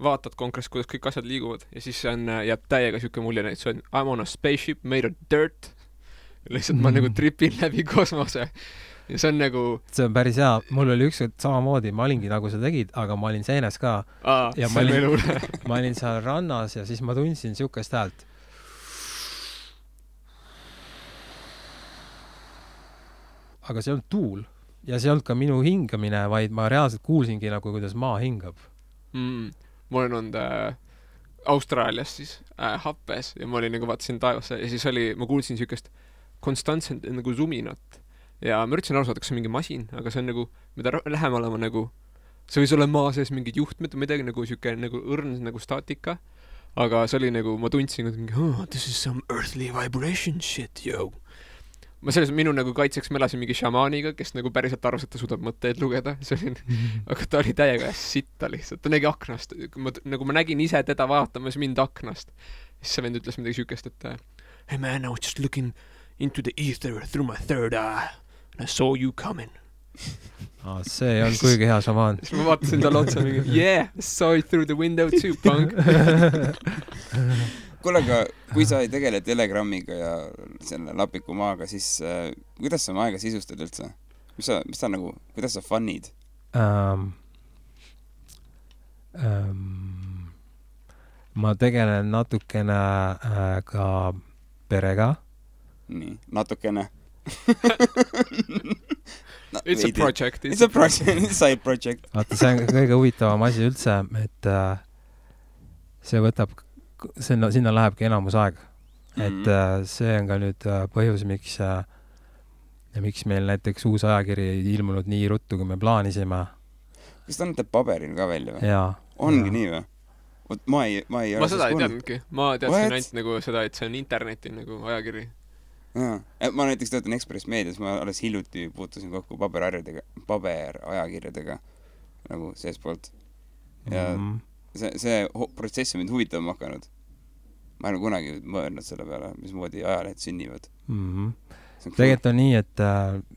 vaatad konkreetselt, kuidas kõik asjad liiguvad ja siis jääb täiega süke mulje, et see on I'm on a spaceship made of dirt. Lihtsalt ma nagu tripin läbi kosmose ja see on nagu... See
on päris hea. Mul oli ükskord samamoodi, ma olingi nagu sa tegid, aga ma olin seenes ka. Ja ma olin seal rannas ja siis ma tundsin sükest häält. Aga see on tuul ja see on ka minu hingamine, vaid ma reaalselt kuulsingi nagu, kuidas maa hingab.
Ma olen olnud Austraalias siis happes ja ma olin nagu vaatasin taevasse ja siis ma kuulsin sükest konstantselt nagu suminat ja ma üritasin aru saada, kas see on mingi masin, aga see on nagu, mida lähemale ma nagu, see võis olla maa sees mingid juhtmed või midagi nagu süke nagu õrn nagu staatika, aga see oli nagu, ma tundsin mingi, this is some earthly vibration shit, yo. Ma selles minu nagu kaitseks ma elasin mingi šamaaniga, kes nagu päriselt arvas, et ta suudab mõtteid lugeda. Aga ta oli täiega sitta lihtsalt. Ta nägi aknast. Nagu ma nägin ise teda vaatamas mind aknast. Siis see vend ütles midagi sükest, et hey man, I was just looking into the ether through my third eye and I saw you coming.
See on kuigi hea šamaan.
Siis ma vaatasin talle otsa mingi, yeah, I saw you through the window too, punk.
Kuule, aga kui sa ei tegele Telegrammiga ja selle lapiku maaga, siis kuidas sa oma aega sisustad üldse? Mis sa nagu, kuidas sa funnid?
Ma tegelen natukene ka perega.
Nii, natukene.
It's a project.
It's a project, side project.
Vaata, see on kõige huvitavam asi üldse, et see võtab sinna lähebki enamus aeg. Et see on ka nüüd põhjus, miks meil näiteks uus ajakiri ei ilmunud nii ruttu, kui me plaanisime.
Kas ta annate paberil ka välja või?
Jaa.
Ongi nii või? Ma
seda ei teadnudki. Ma teadsin ainult nagu seda, et see on interneti nagu ajakiri.
Ma näiteks töötan Express Medias, ma alles hiljuti puutusin kokku paberajakirjadega nagu seespoolt. Ja see protsess on mind huvitama hakanud. Ma ei ole kunagi mõelnud selle peale, mismoodi ajalehed sünnivad.
Tegelikult on nii, et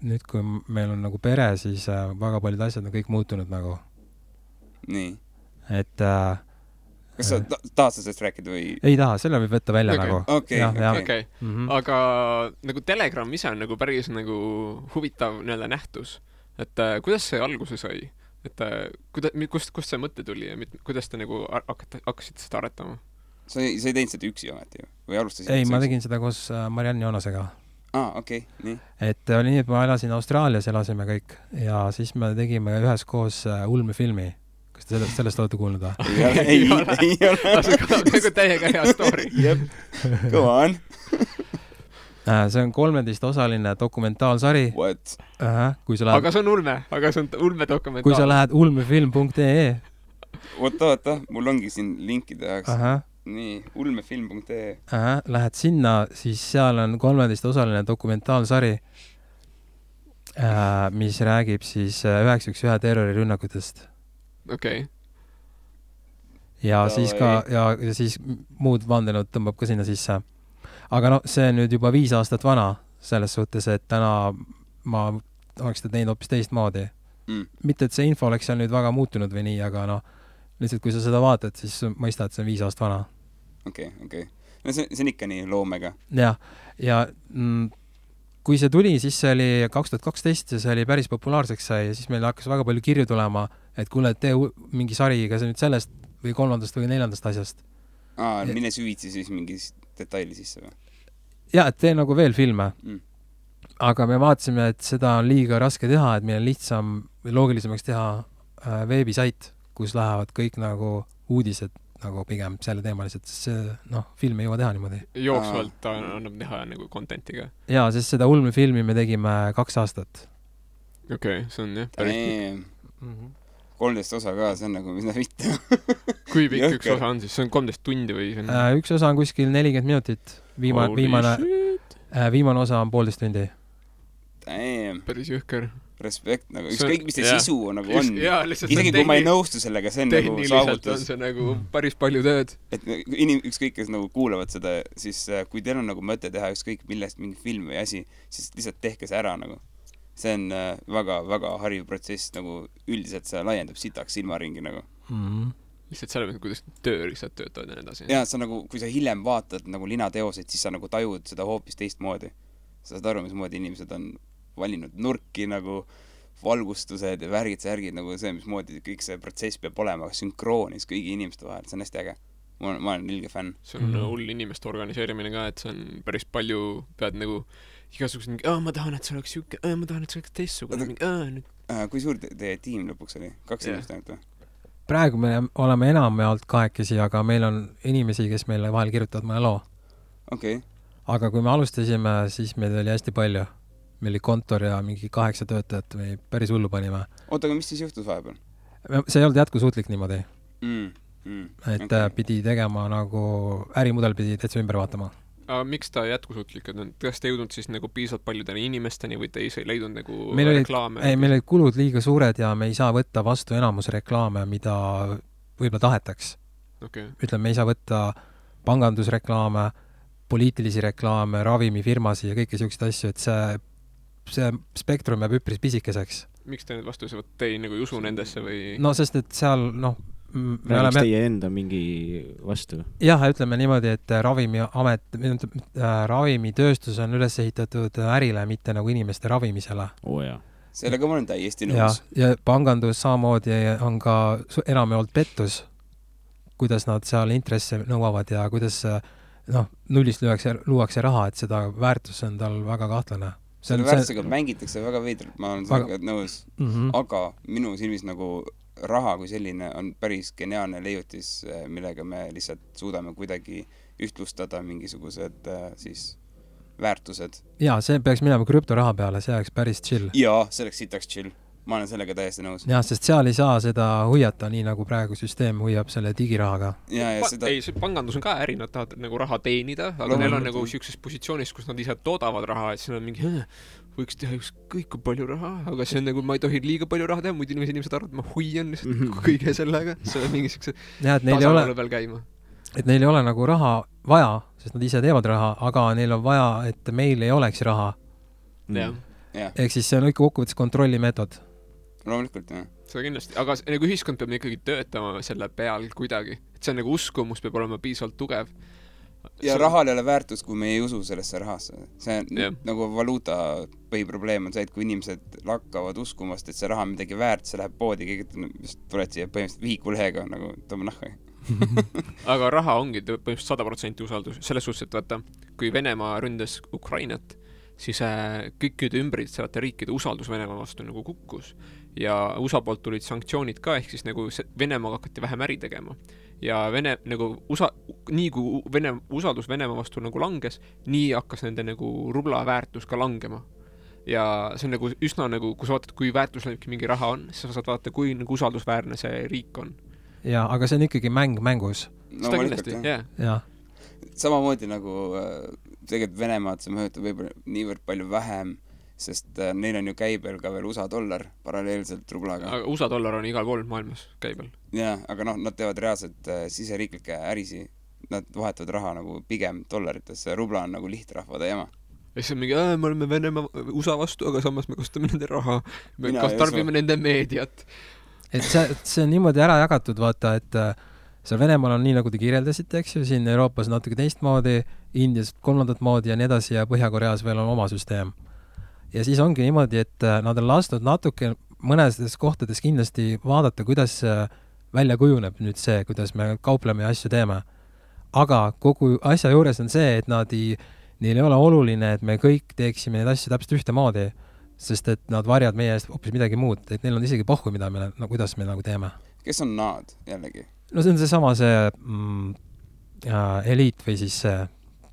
nüüd kui meil on nagu pere, siis väga paljud asjad on kõik muutunud nagu.
Nii.
Et
kas sa tahad sellest rääkida või?
Ei taha, selle võib võtta välja
okay.
nagu.
Okay. Aga nagu Telegram ise on nagu päris nagu huvitav nii-öelda nähtus. Et kuidas see alguse sai? Et kust see mõte tuli ja kuidas te nagu hakkasite seda aretama?
Sa ei teinud seda üksi ometi ju? Või alustasid?
Ei, ma tegin seda koos Marianne Joonasega.
Okei, nii.
Et oli nii, et ma elasin Austraalias, elasime kõik ja siis me tegime üheskoos ulmefilmi. Kas te sellest olete kuulnud või?
Ei ole.
Nagu täiega hea story.
Jep, go on.
See on 13-osaline dokumentaalsari.
What?
Aga see on ulme dokumentaal.
Kui sa lähed ulmefilm.ee
Oota, mul ongi siin linkide jaoks. Nii, ulmefilm.ee
Lähed sinna, siis seal on 13-osaline dokumentaalsari, mis räägib siis 911 terrorirünnakutest.
Okei.
Ja siis ka, ja siis muud vandenud tõmbab ka sinna sisse. Aga see on nüüd juba 5 aastat vana, selles suhtes, et täna ma oleks seda teinud hoopis teistmoodi. Mitte, et see info oleks seal nüüd väga muutunud või nii, aga lihtsalt kui sa seda vaatad, siis mõistad, et see on 5 aastat vana.
Okei. No see on ikka nii loomega.
Ja kui see tuli, siis see oli 2012 ja see oli päris populaarseks sai ja siis meil hakkas väga palju kirju tulema, et kuule, tee mingi sari, kas nüüd sellest või 3. või 4. asjast.
Mine süvitsi siis mingi detaili sisse või?
Ja, et tee nagu veel filme. Aga me vaatasime, et seda on liiga raske teha, et meil on lihtsam või loogilisemaks teha veebisait, kus lähevad kõik nagu uudised nagu pigem selle teemalised, sest see, film ei jõua teha niimoodi.
Jooksvalt annab teha nagu contentiga.
Jaa, sest seda ulmefilmi me tegime 2 aastat.
Okei, see on jah päris.
13 osa ka, see on nagu mida mitte.
Kui pikk üks osa on siis? See on 13 tundi või?
Üks osa on kuskil 40 minutit. Viimane osa on 1,5 tundi.
Päris jõhker.
Respekt, nagu ükskõik, mis see sisu nagu on. Isegi kui ma ei nõustu sellega, see on nagu saavutus.
Tehniliselt on see nagu päris palju tööd.
Et ükskõik, kes nagu kuulavad seda, siis kui teil on nagu mõte teha ükskõik millest mingi film või asi, siis lihtsalt tehke see ära nagu. See on väga hariv protsess, nagu üldiselt see laiendab sitaks silmaringi nagu.
Lihtsalt selle mõttes, kuidas tööriistad töötavad ja nii edasi.
Ja sa nagu, kui sa hiljem vaatad nagu linateoseid, siis sa nagu tajud seda hoopis teistmoodi. Sa saad aru, mismoodi inimesed on valinud nurki nagu valgustused ja särgid nagu see, mismoodi kõik see protsess peab olema sünkroonis kõigi inimeste vahel, see on hästi äge. Ma olen ilge fänn.
See on hull inimeste organiseerimine ka, et see on päris palju, pead nagu igasugused mingi, ma tahan, et see oleks siuke, ma tahan, et see oleks teistsugune.
Kui suur teie tiim lõpuks oli? 2 inimest ainult või?
Praegu me oleme enamjaolt 2, aga meil on inimesi, kes meile vahel kirjutavad mõne loo.
Okei.
Aga kui me alustasime, siis meid oli hästi palju. Meil oli kontor ja mingi 8 töötajat või päris hullu panime.
Oota, aga mis siis juhtus vahepeal?
See ei olnud jätkusuutlik niimoodi.
Et
pidi tegema nagu, ärimudel pidi täitsa ümber vaatama.
Aga miks ta jätkusuutlik? Kas te jõudnud siis nagu piisavalt paljudele inimesteni või te ei leidnud nagu reklaame?
Meil olid kulud liiga suured ja me ei saa võtta vastu enamus reklaame, mida võib-olla tahetaks. Ütleme, me ei saa võtta pangandusreklaame, poliitilisi reklaame, ravimifirmasi ja kõiki selliseid asju, et see spektrum jääb üpris pisikeseks.
Miks te nüüd vastu te ei nagu usu nendesse või?
No sest, et seal,
Räägiks teie enda mingi vastu?
Jah, ütleme niimoodi, et ravimitööstus on üles ehitatud ärile, mitte nagu inimeste ravimisele.
Sellega ma olen täiesti nõus.
Ja pangandus samamoodi on ka enamjaolt pettus, kuidas nad seal intresse nõuavad ja kuidas nullist luuakse raha, et seda väärtus on tal väga kahtlane.
Selle väärtusega mängitakse väga veidralt, ma olen sellega nõus. Aga minu silmis nagu raha kui selline on päris geniaalne leiutis, millega me lihtsalt suudame kuidagi ühtlustada mingisugused siis väärtused.
Jaa, see peaks minema krüptoraha peale, see oleks päris chill.
Jaa, see oleks sitaks chill. Ma olen sellega täiesti nõus.
Jah, sest seal ei saa seda hoiata nii, nagu praegu süsteem hoiab selle digirahaga.
Ei, see pangandus on ka äri, nad tahavad nagu raha teenida, aga neil on nagu siukses positsioonis, kus nad ise toodavad raha, et siin on mingi, võiks teha ükskõik kui palju raha, aga see on nagu, ma ei tohi liiga palju raha teha, muidu inimesed arvad, ma hoian lihtsalt kõige sellega. See on mingi siukse tasakaalu peal käima.
Et neil ei ole nagu raha vaja, sest nad ise teevad raha, aga neil on vaja, et meil ei oleks raha. Ehk siis see on ikka kokkuvõttes kontrollimeetod.
Loomulikult, jah.
Seda kindlasti, aga nagu ühiskond peab ikkagi töötama selle peal kuidagi. see on nagu uskumus peab olema piisavalt tugev.
Ja rahal ei ole väärtus, kui me ei usu sellesse rahasse. See on nagu valuuta põhiprobleem on see, et kui inimesed lakkavad uskumast, et see raha on midagi väärt, see läheb poodi, keegi tuled siia põhimõtteliselt vihikulehega nagu tõmba nahka.
Aga raha ongi põhimõtteliselt 100% usaldus. Selles suhtes, et vaata, kui Venemaa ründas Ukrainat, siis kõikide ümbritsevate riikide usaldus Venemaa vastu nagu kukkus. Ja USA poolt tulid sanktsioonid ka, ehk siis nagu Venemaa hakati vähem äri tegema. Ja nii kui usaldus Venemaa vastu nagu langes, nii hakkas nende nagu rubla väärtus ka langema. Ja see on nagu üsna nagu, kui sa vaatad, kui väärtuslik mingi raha on, siis sa saad vaadata, kui nagu usaldusväärne see riik on.
Ja, aga see on ikkagi mängus.
No,
kindlasti,
jah.
Samamoodi nagu tegelikult Venemaad see mõjutab võib-olla niivõrd palju vähem, sest neil on ju käibel ka veel USA dollar paralleelselt rublaga.
Aga USA dollar on igal pool maailmas käibel.
Jaa, aga nad teevad reaalselt siseriiklikke ärisi. Nad vahetavad raha nagu pigem dollarites. Rubla on nagu lihtrahvade jama.
Ja siis on mingi, me oleme Venemaa USA vastu, aga samas me kasutame nende raha. Me tarbime nende meediat.
Et see on niimoodi ära jagatud, vaata, et seal Venemaal on nii, nagu te kirjeldasite, eks ju, siin Euroopas natuke teistmoodi, Indias kolmandat moodi ja nii edasi ja Põhja-Koreas veel on oma süsteem. Ja siis ongi niimoodi, et nad on lastud natuke mõnedes kohtades kindlasti vaadata, kuidas välja kujuneb nüüd see, kuidas me kaupleme ja asju teeme. Aga kogu asja juures on see, et neil ei ole oluline, et me kõik teeksime neid asju täpselt ühte moodi, sest et nad varjad meie eest hoopis midagi muud, et neil on isegi pohhu, kuidas me nagu teeme.
Kes on nad jällegi?
No see on seesama eliit või siis see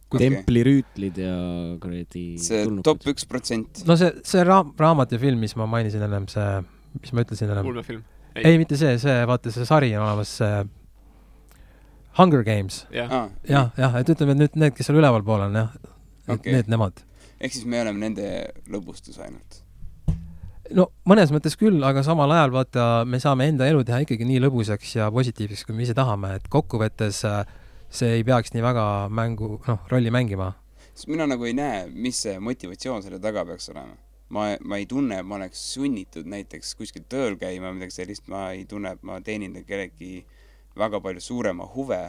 templirüütlid ja kuradi
see top 1%.
No see raamat ja film, mis ma mainisin ennem, see, mis ma ütlesin ennem.
Ulmefilm.
Ei, mitte see, vaata see sari on olemas, see Hunger Games.
Jah,
et ütleme, et nüüd need, kes seal üleval pool on, nemad.
Ehk siis me oleme nende lõbustus ainult.
No mõnes mõttes küll, aga samal ajal vaata, me saame enda elu teha ikkagi nii lõbusaks ja positiivseks, kui me ise tahame, et kokkuvõttes see ei peaks nii väga rolli mängima.
Sest mina nagu ei näe, mis see motivatsioon selle taga peaks olema. Ma ei tunne, et ma oleks sunnitud näiteks kuskil tööl käima, midagi sellist, ma ei tunne, et ma teenin kellegi väga palju suurema huve.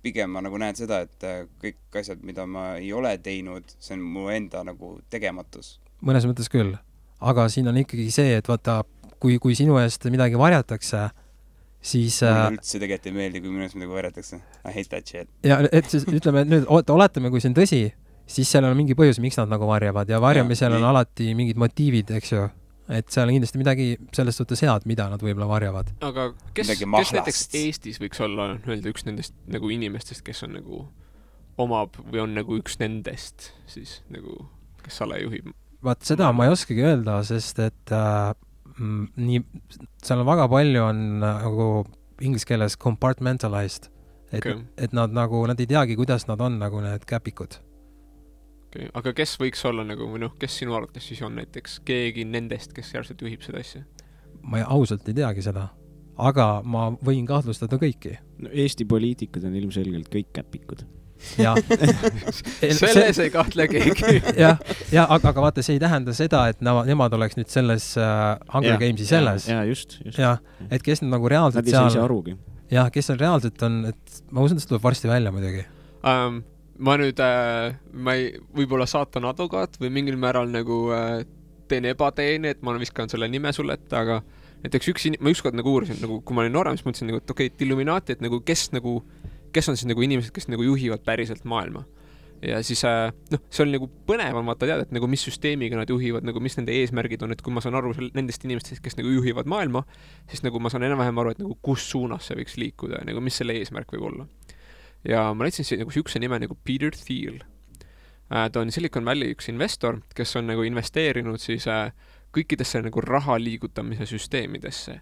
Pigem ma nagu näen seda, et kõik asjad, mida ma ei ole teinud, see on mu enda nagu tegematus.
Mõnes mõttes küll, aga siin on ikkagi see, et vaata, kui sinu eest midagi varjatakse, siis
mulle üldse tegelikult ei meeldi, kui minu eest midagi varjatakse. I hate that shit.
Ja et siis ütleme, et nüüd oletame, kui see on tõsi, siis seal on mingi põhjus, miks nad nagu varjavad ja varjamisel on alati mingid motiivid, eks ju. Et seal on kindlasti midagi sellest suhtes head, mida nad võib-olla varjavad.
Aga kes näiteks Eestis võiks olla üks nendest nagu inimestest, kes on nagu omab või on nagu üks nendest siis nagu, kes sale juhib?
Vaat seda ma ei oskagi öelda, sest et seal on väga palju on nagu inglise keeles compartmentalized, et nad ei teagi, kuidas nad on nagu need käpikud.
Okay. Aga kes võiks olla nagu, või kes sinu arvates siis on näiteks keegi nendest, kes järgselt juhib seda asja?
Ma ausalt ei teagi seda, aga ma võin kahtlustada kõiki.
No, Eesti poliitikud on ilmselgelt kõik käpikud.
Ja.
Selles ei kahtle keegi.
aga vaata, see ei tähenda seda, et nemad oleks nüüd selles Hunger Gamesi selles.
Just.
Et kes nad nagu reaalselt
seal... Nad ei saa arugi.
Kes seal reaalselt on, et ma usun, et see tuleb varsti välja muidugi.
Ma nüüd, ma ei võib-olla saatan advokaat või mingil määral nagu teen ebateeni, et ma viskan selle nime sulle, aga näiteks ma ükskord nagu uurisin, nagu, kui ma olin noorem, siis mõtlesin, nagu, et okei, Illuminati, et nagu, kes on siis nagu inimesed, kes nagu juhivad päriselt maailma. Ja siis, see oli nagu põnev on vaata teada, et nagu mis süsteemiga nad juhivad, nagu mis nende eesmärgid on, et kui ma saan aru nendest inimestest, kes nagu juhivad maailma, siis nagu ma saan enam-vähem aru, et nagu kus suunas see võiks liikuda ja nagu mis selle eesmärk võib olla. Ja ma leidsin nagu sihukese nime nagu Peter Thiel. Ta on Silicon Valley üks investor, kes on nagu investeerinud siis kõikidesse nagu raha liigutamise süsteemidesse.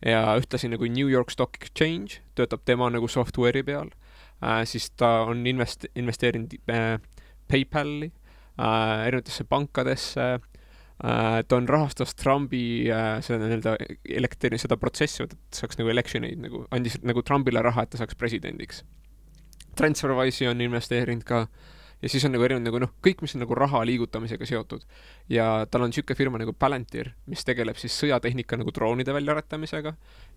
Ja ühtlasi nagu New York Stock Exchange töötab tema nagu software'i peal. Siis ta on investeerinud PayPali, erinevatesse pankadesse. Ta on rahastas Trumpi seda protsessi, et saaks nagu electioneid, nagu andis nagu Trumpile raha, et ta saaks presidendiks. Transferwise'i on investeerinud ka ja siis on nagu erinevad nagu kõik, mis on nagu raha liigutamisega seotud. Ja tal on niisugune firma nagu Palantir, mis tegeleb siis sõjatehnika nagu droonide väljaaretamisega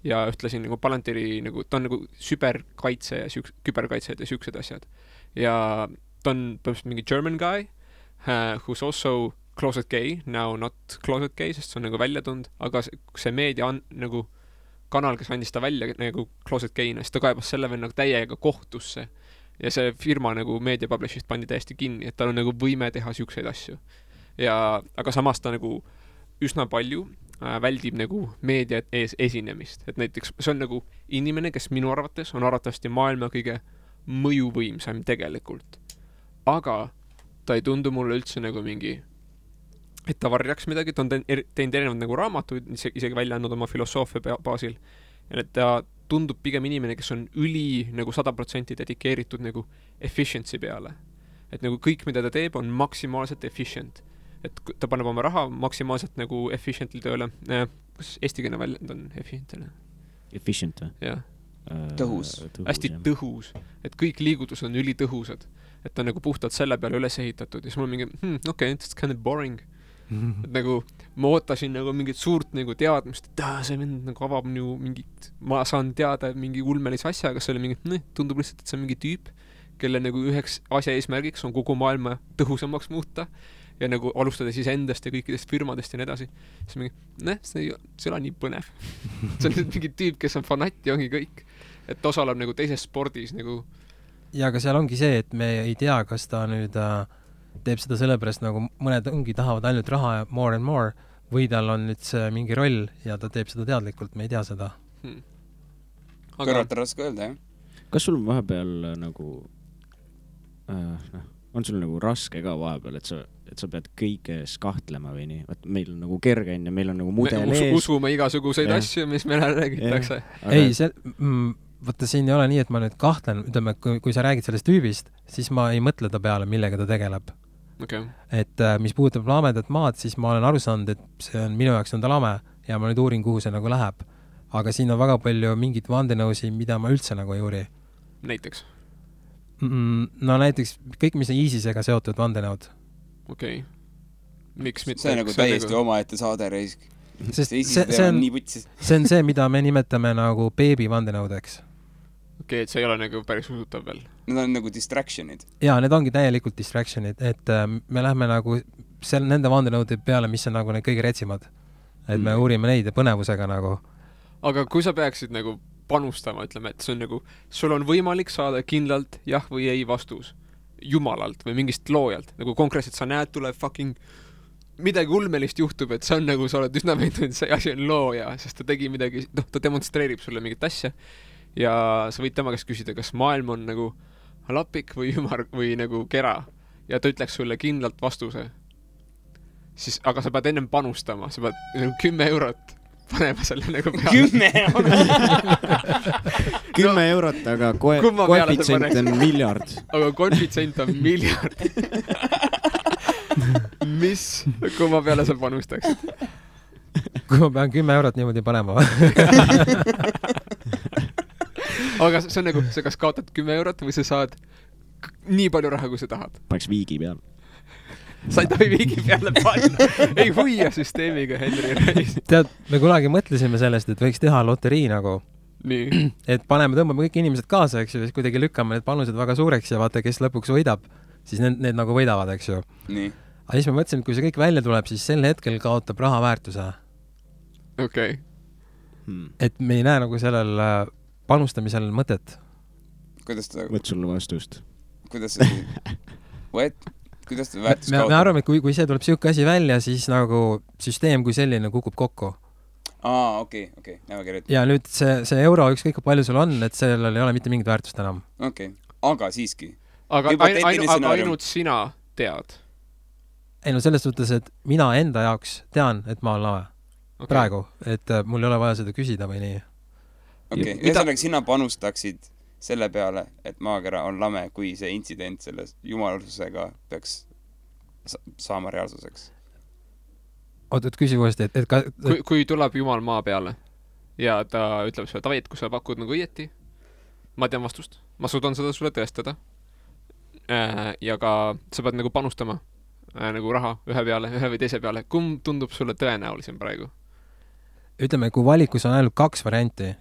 ja ühtlasin nagu Palantiri nagu, ta on nagu süberkaitse ja küberkaitsed ja siuksed asjad. Ja ta on põhimõtteliselt mingi German guy, who's also closet gay, now not closet gay, sest see on nagu välja tund, aga see meedia on nagu kanal, kes andis ta välja nagu closet gay'na, siis ta kaebas selle veel nagu täiega kohtusse. Ja see firma nagu media publishist pandi täiesti kinni, et tal on nagu võime teha siukseid asju. Ja, aga samas ta nagu üsna palju väldib nagu meedia ees esinemist. Et näiteks see on nagu inimene, kes minu arvates on arvatavasti maailma kõige mõjuvõimsam tegelikult. Aga ta ei tundu mulle üldse nagu mingi, et ta varjaks midagi, ta on teinud erinevad nagu raamatuid, isegi välja andnud oma filosoofia baasil. Ja et ta tundub pigem inimene, kes on nagu 100% dedikeeritud nagu efficiency peale. Et nagu kõik, mida ta teeb, on maksimaalselt efficient. Et ta paneb oma raha maksimaalselt nagu efficiently tööle. Kas eestikeelne väljend on efficientile?
Efficient või?
Jah.
Tõhus.
Hästi tõhus. Et kõik liigutused on ülitõhusad. Et ta on nagu puhtalt selle peale üles ehitatud. Ja siis mul on mingi, okay, it's kind of boring. Et nagu ma ootasin nagu mingit suurt nagu teadmist, et see mind nagu avab nagu mingit, ma saan teada mingi ulmelise asja, aga see oli mingi, tundub lihtsalt, et see on mingi tüüp, kelle nagu üheks asja eesmärgiks on kogu maailma tõhusamaks muuta ja nagu alustada siis endast ja kõikidest firmadest ja nii edasi. Siis mingi, see ei ole nii põnev. See on mingi tüüp, kes on fanat ja ongi kõik. Et osaleb nagu teises spordis nagu.
Ja aga seal ongi see, et me ei tea, kas ta nüüd teeb seda sellepärast, nagu mõned ongi tahavad ainult raha ja more and more, või tal on nüüd see mingi roll ja ta teeb seda teadlikult, me ei tea seda.
Kõrvalt on raske öelda, jah?
Kas sul vahepeal nagu on sul nagu raske ka vahepeal, et sa pead kõiges kahtlema või nii? Vaat meil on nagu kerge ja meil on nagu mudel ees.
Usume igasuguseid asju, mis meile räägitakse.
Ei, vaata siin ei ole nii, et ma nüüd kahtlen, ütleme, kui sa räägid sellest tüübist, siis ma ei mõtle ta peale, millega ta tegeleb.
Okay.
Et mis puudutab lamedat maad, siis ma olen aru saanud, et see on minu jaoks on ta lame ja ma nüüd uurin, kuhu see nagu läheb. Aga siin on väga palju mingit vandenõusi, mida ma üldse nagu ei uuri.
Näiteks?
No näiteks kõik, mis on ISISega seotud vandenõud.
Okei. Miks mitte?
See on nagu täiesti omaette saade reisk.
Sest see on see, mida me nimetame nagu beebi vandenõudeks.
Okei, et see ei ole nagu päris usutav veel.
Need on nagu distractionid.
Jaa, need ongi täielikult distractionid, et me lähme nagu nende vandenõude peale, mis on nagu need kõige retsimad. Et me uurime neid ja põnevusega nagu.
Aga kui sa peaksid nagu panustama, ütleme, et see on nagu, sul on võimalik saada kindlalt jah või ei vastus jumalalt või mingist loojalt. Nagu konkreetselt sa näed, tuleb fucking midagi ulmelist juhtub, et see on nagu, sa oled üsna veendunud, see asi on looja, sest ta tegi midagi, ta demonstreerib sulle mingit asja ja sa võid tema käest küsida, kas maailm on nagu lapik või ümar või nagu kera ja ta ütleks sulle kindlalt vastuse. Siis, aga sa pead ennem panustama, sa pead nagu 10 eurot panema selle nagu peale.
10 eurot?
10 eurot, aga koefitsient on miljard.
Aga koefitsient on miljard. Mis kumma peale sa panustaksid?
Kui ma pean 10 eurot niimoodi panema.
Aga see on nagu, sa kas kaotad 10 eurot või sa saad nii palju raha, kui sa tahad.
Paneks viigi peal.
Sa ei tohi viigi peale panna. Ei huia süsteemiga, Henri Reis.
Tead, me kunagi mõtlesime sellest, et võiks teha loterii nagu.
Nii.
Et tõmbame kõik inimesed kaasa, eks ju, siis kuidagi lükkame need panused väga suureks ja vaata, kes lõpuks võidab, siis need nagu võidavad, eks ju.
Nii.
Aga siis me mõtlesime, et kui see kõik välja tuleb, siis sel hetkel kaotab raha väärtuse.
Okei.
Et me ei näe nagu sellel panustamisel mõtet.
Kuidas ta...
Võt sulle vastust.
Kuidas ta väärtus kaotab?
Me arvame, et kui see tuleb siuke asi välja, siis nagu süsteem kui selline kukub kokku.
Okei.
Ja nüüd see euro, ükskõik palju sul on, et sellel ei ole mitte mingit väärtust enam.
Okei. Aga siiski.
Aga ainult sina tead.
Ei no selles suhtes, et mina enda jaoks tean, et ma olen lame. Okay. Praegu, et mul ei ole vaja seda küsida või nii.
Okei, ühesõnaga sina panustaksid selle peale, et maakera on lame, kui see intsident selle jumalususega peaks saama reaalsuseks.
Oot, küsi uuesti,
kui tuleb jumal maa peale ja ta ütleb sulle, Tavit, kui sa pakud nagu õieti, ma tean vastust, ma suudan seda sulle tõestada. ja ka sa pead nagu panustama nagu raha ühe või teise peale. Kumb tundub sulle tõenäolisem praegu?
Ütleme, kui valikus on ainult 2 varianti,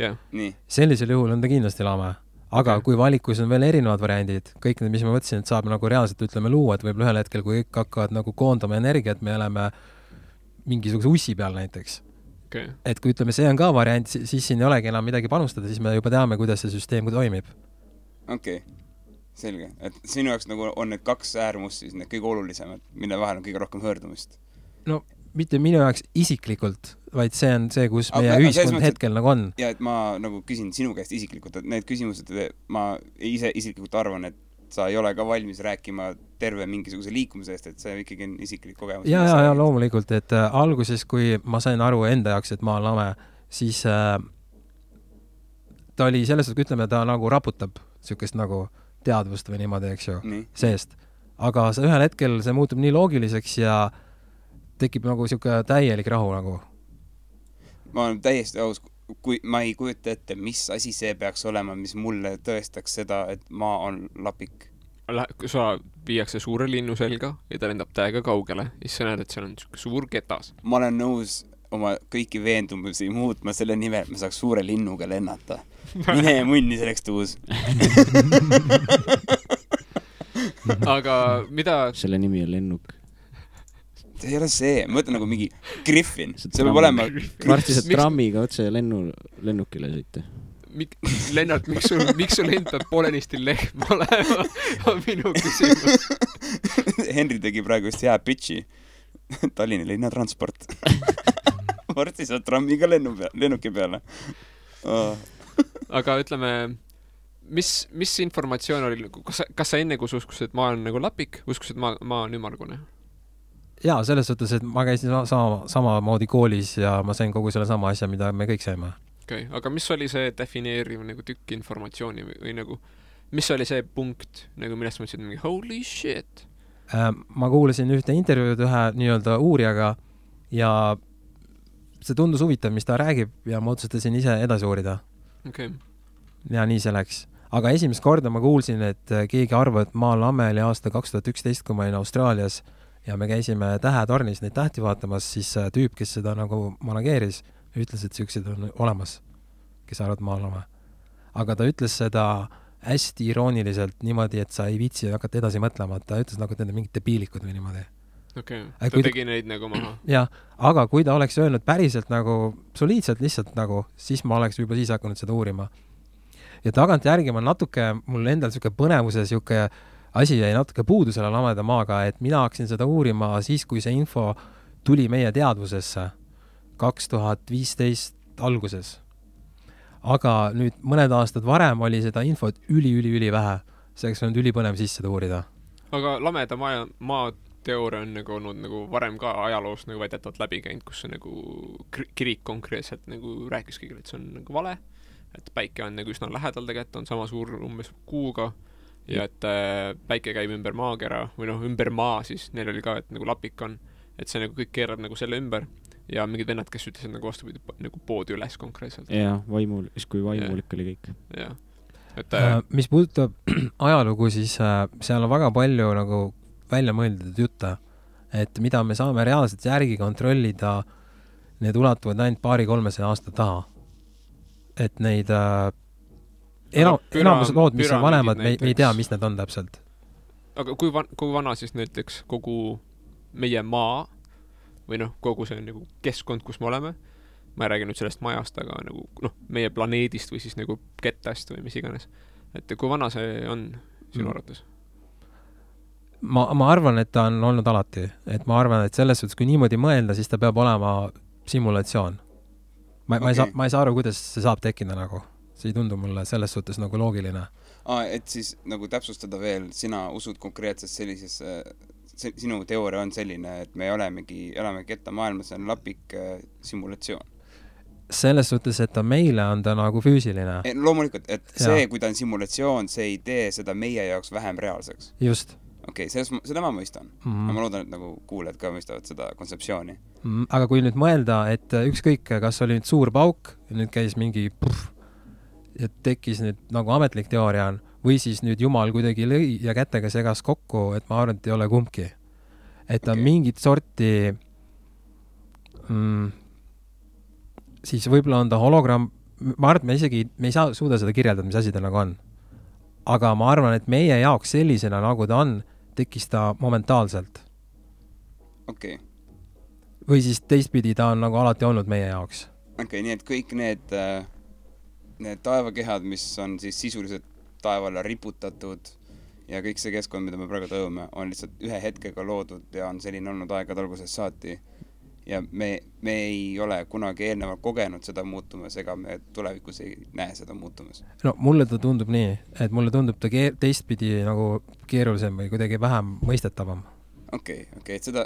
sellisel juhul on ta kindlasti lame. Aga kui valikus on veel erinevad variandid, kõik need, mis ma mõtlesin, et saab nagu reaalselt ütleme luua, et võib ühel hetkel, kui kõik hakkavad nagu koondama energiat, me oleme mingisuguse ussi peal näiteks.
Okay.
Et kui ütleme, see on ka variant, siis siin ei olegi enam midagi panustada, siis me juba teame, kuidas see süsteem toimib.
Okei, selge. Et sinu jaoks nagu on need 2 äärmust siis need kõige olulisemad, mille vahel on kõige rohkem höördumist?
No mitte minu jaoks isiklikult, vaid see on see, kus meie ühiskond hetkel nagu on.
Ja et ma nagu küsin sinu käest isiklikult, et need küsimused, ma ise isiklikult arvan, et sa ei ole ka valmis rääkima terve mingisuguse liikumise eest, et see ikkagi on isiklik kogemus.
Ja loomulikult, et alguses, kui ma sain aru enda jaoks, et ma olen lame, siis ta oli selles, et ütleme, ta nagu raputab sükest nagu teadvust või niimoodi, eks ju, seest. Aga ühel hetkel see muutub nii loogiliseks ja tekib nagu siuke täielik rahu nagu.
Ma olen täiesti aus, kui ma ei kujuta ette, mis asi see peaks olema, mis mulle tõestaks seda, et maa on lapik.
Sa viiakse suure linnu selga ja ta lendab täiega kaugele ja siis sa näed, et seal on suur ketas.
Ma olen nõus oma kõiki veendumusi muutma selle nimel, et me saaks suure linnuga lennata. Mine munni selleks tuus.
Aga mida...
Selle nimi on lennuk.
See ei ole see, ma mõtlen nagu mingi Griffin. See peab olema...
Varsti sa trammiga otse lennukile sõite.
Lennart, miks sul endab poolenisti lehm olema? On minu küsimus.
Henri tegi praegu just hea pitchi. Tallinna linnatransport. Varsti sa trammiga lennuki peale.
Aga ütleme, mis informatsioon oli? Kas sa enne, kui sa uskusid, et maa on nagu lapik, uskusid, et maa on ümargune?
Jaa, selles suhtes, et ma käisin samamoodi koolis ja ma sain kogu selle sama asja, mida me kõik saime.
Okay. Aga mis oli see defineeriv nagu tükk informatsiooni või nagu, mis oli see punkt, nagu millest mõtlesid mingi holy shit?
Ma kuulasin ühte intervjuud ühe nii-öelda uurijaga ja see tundus huvitav, mis ta räägib ja ma otsustasin ise edasi uurida.
Okay.
Ja nii see läks. Aga esimest korda ma kuulsin, et keegi arvab, et maa lame oli aasta 2011, kui ma olin Austraalias ja me käisime tähetornis neid tähti vaatamas, siis tüüp, kes seda nagu manageeris, ütles, et siuksed on olemas, kes arvad maa lame. Aga ta ütles seda hästi irooniliselt niimoodi, et sa ei viitsi hakata edasi mõtlema, ta ütles nagu, et need on mingid debiilikud või niimoodi.
Okay. Ta tegi neid nagu maha.
Jah, aga kui ta oleks öelnud päriselt nagu soliidselt lihtsalt nagu, siis ma oleks juba siis hakanud seda uurima. Ja tagant järgi ma natuke, mul endal siuke põnevuse siuke asi jäi natuke puudu selle lameda maaga, et mina hakkasin seda uurima siis, kui see info tuli meie teadvusesse 2015 alguses. Aga nüüd mõned aastad varem oli seda infot üli vähe. Selleks on ülipõnev sisse uurida.
Aga lameda maa teooria on nagu olnud nagu varem ka ajaloos nagu väidetavalt läbi käinud, kus see nagu kirik konkreetselt nagu rääkis kõigile, et see on nagu vale, et päike on nagu üsna lähedal tegelikult, on sama suur umbes kuuga ja et päike käib ümber maakera või noh, ümber maa siis, neil oli ka, et nagu lapik on, et see nagu kõik keerab nagu selle ümber ja mingid vennad, kes ütlesid nagu vastupidi nagu poodi üles konkreetselt.
Jaa, kui vaimulik oli kõik.
Jaa. Et,
mis puudutab ajalugu, siis seal on väga palju nagu välja mõeldud jutte, et mida me saame reaalselt järgi kontrollida, need ulatuvad ainult 200-300 aasta taha. Et neid enamus lood, mis on vanemad, me ei tea, mis need on täpselt.
Aga kui vana siis näiteks kogu meie maa või noh, kogu see nagu keskkond, kus me oleme, ma ei räägi nüüd sellest majast, aga nagu noh, meie planeedist või siis nagu kettast või mis iganes. Et kui vana see on sinu arvates?
Ma arvan, et ta on olnud alati. Et ma arvan, et selles suhtes, kui niimoodi mõelda, siis ta peab olema simulatsioon. Ma ei saa aru, kuidas see saab tekkida nagu. See ei tundu mulle selles suhtes nagu loogiline.
Et siis nagu täpsustada veel, sina usud konkreetselt sellises, sinu teooria on selline, et me elame ketta maailmas, see on lapik simulatsioon. Selles
suhtes, et ta meile on ta nagu füüsiline.
Loomulikult, et see, kui ta on simulatsioon, see ei tee seda meie jaoks vähem reaalseks.
Just.
Okei, seda ma mõistan. Ma loodan, et nagu kuuled ka mõistavad seda kontseptsiooni.
Aga kui nüüd mõelda, et ükskõik, kas oli nüüd suur pauk, nüüd käis mingi ja tekkis nüüd nagu ametlik teooria on, või siis nüüd Jumal kuidagi lõi ja kätega segas kokku, et ma arvan, et ei ole kumbki. Et ta mingit sorti siis võib-olla on ta hologramm, ma arvan, et me ei saa suuda seda kirjeldada, mis asi ta nagu on. Aga ma arvan, et meie jaoks sellisena, nagu ta on, tekkis ta momentaalselt. Või siis teistpidi ta on nagu alati olnud meie jaoks.
Nii et kõik need taevakehad, mis on siis sisuliselt taevale riputatud ja kõik see keskkond, mida me praegu tõume, on lihtsalt ühe hetkega loodud ja on selline olnud aegade algusest saati. Ja me ei ole kunagi eelnevalt kogenud seda muutumas, ega me tulevikus ei näe seda muutumas. No
mulle ta tundub nii, et mulle tundub ta teistpidi nagu keerulisem või kuidagi vähem mõistetavam.
Et seda,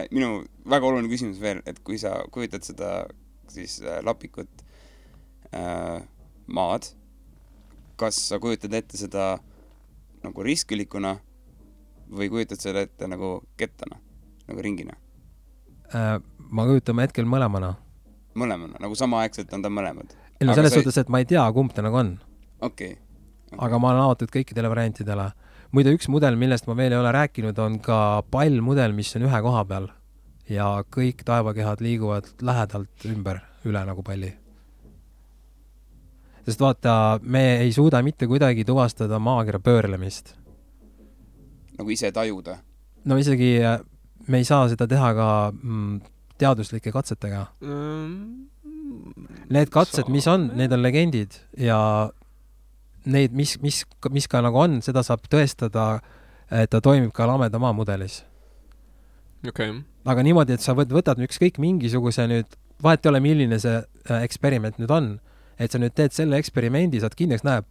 minu väga oluline küsimus veel, et kui sa kujutad seda siis lapikut maad, kas sa kujutad ette seda nagu riskilikuna või kujutad seda ette nagu kettana, nagu ringina?
Ma kujutame hetkel mõlemana.
Mõlemana, nagu samaaegselt on ta mõlemad.
No selles suhtes, et ma ei tea, kumb ta nagu on.
Okay.
Aga ma olen avatud kõikidele variantidele. Muide, üks mudel, millest ma veel ei ole rääkinud, on ka pallmudel, mis on ühe koha peal. Ja kõik taevakehad liiguvad lähedalt üle nagu palli. Sest vaata, me ei suuda mitte kuidagi tuvastada maakera pöörlemist.
Nagu ise tajuda?
No isegi me ei saa seda teha ka teaduslike katsetega. Need katsed, mis on, need on legendid ja neid, mis ka nagu on, seda saab tõestada, et ta toimib ka lameda maa mudelis. Aga niimoodi, et sa võtad ükskõik mingisuguse nüüd, vahet ei ole, milline see eksperiment nüüd on, et sa nüüd teed selle eksperimendi, saad kindlaks näe,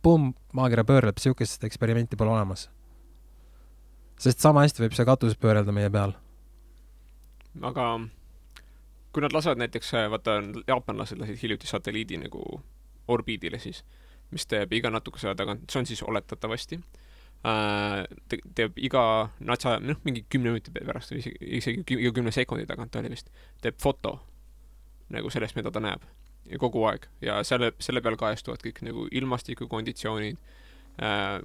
maakera pöörleb, siukest eksperimenti pole olemas. Sest sama hästi võib see katus pöörelda meie peal.
Aga kui nad lasevad näiteks, vaata, jaapanlased lasid hiljuti satelliidi nagu orbiidile siis, mis teeb iga natukese tagant, see on siis oletatavasti, teeb iga natsa, mingi 10 minuti pärast, isegi 10 sekundi tagant oli vist, teeb foto nagu sellest, mida ta näeb ja kogu aeg. Ja selle peal kajastuvad kõik nagu ilmastikukonditsioonid,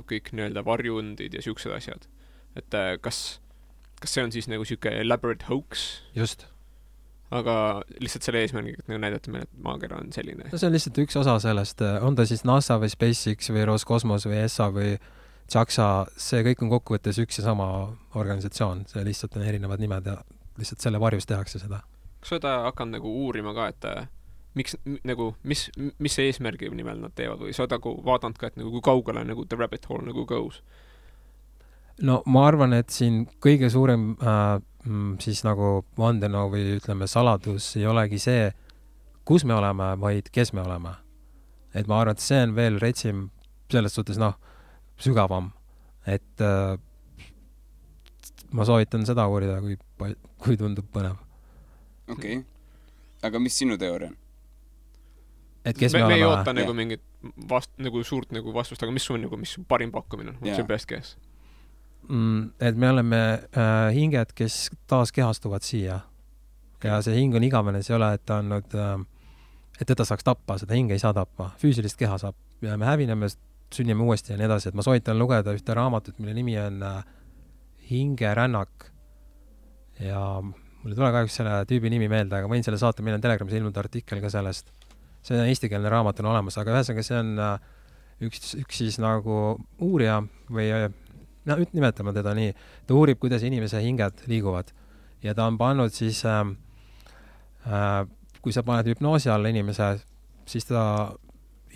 kõik nii-öelda varjundid ja siuksed asjad. Et kas see on siis nagu siuke elaborate hoax?
Just.
Aga lihtsalt selle eesmärgiga, et nagu näidata meile, et maakera on selline.
No see on lihtsalt üks osa sellest. On ta siis NASA või SpaceX või Roskosmos või ESA või JAXA, see kõik on kokkuvõttes üks ja sama organisatsioon. See lihtsalt on erinevad nimed ja lihtsalt selle varjus tehakse seda.
Kas seda hakanud nagu uurima ka, et mis see eesmärgi nimel nad teevad või sa oled vaadanud ka, et nagu kui kaugele nagu the rabbit hole nagu goes?
No ma arvan, et siin kõige suurem siis nagu vandenõu või ütleme saladus ei olegi see, kus me oleme, vaid kes me oleme. Et ma arvan, et see on veel retsim selles suhtes sügavam. Et ma soovitan seda uurida, kui tundub põnev.
Aga mis sinu teooria on?
Et kes me oleme?
Me ei oota nagu mingit suurt nagu vastust, aga mis su parim pakkumine on? What's your best guess?
Et me oleme hinged, kes taas kehastuvad siia. Ja see hing on igavene, see ei ole, et ta on nüüd, et teda saaks tappa, seda hinge ei saa tappa. Füüsilist keha saab ja me hävineme, sünnime uuesti ja nii edasi. Et ma soovitan lugeda ühte raamatut, mille nimi on Hingerännak. Ja mul ei tule kahjuks selle tüübi nimi meelde, aga võin selle saata, meil on Telegramis ilmunud artikkel ka sellest. See on eestikeelne raamat on olemas, aga ühesõnaga see on üks siis nagu uurija või nimetame teda nii, ta uurib, kuidas inimese hinged liiguvad ja ta on pannud siis kui sa paned hüpnoosi alla inimese, siis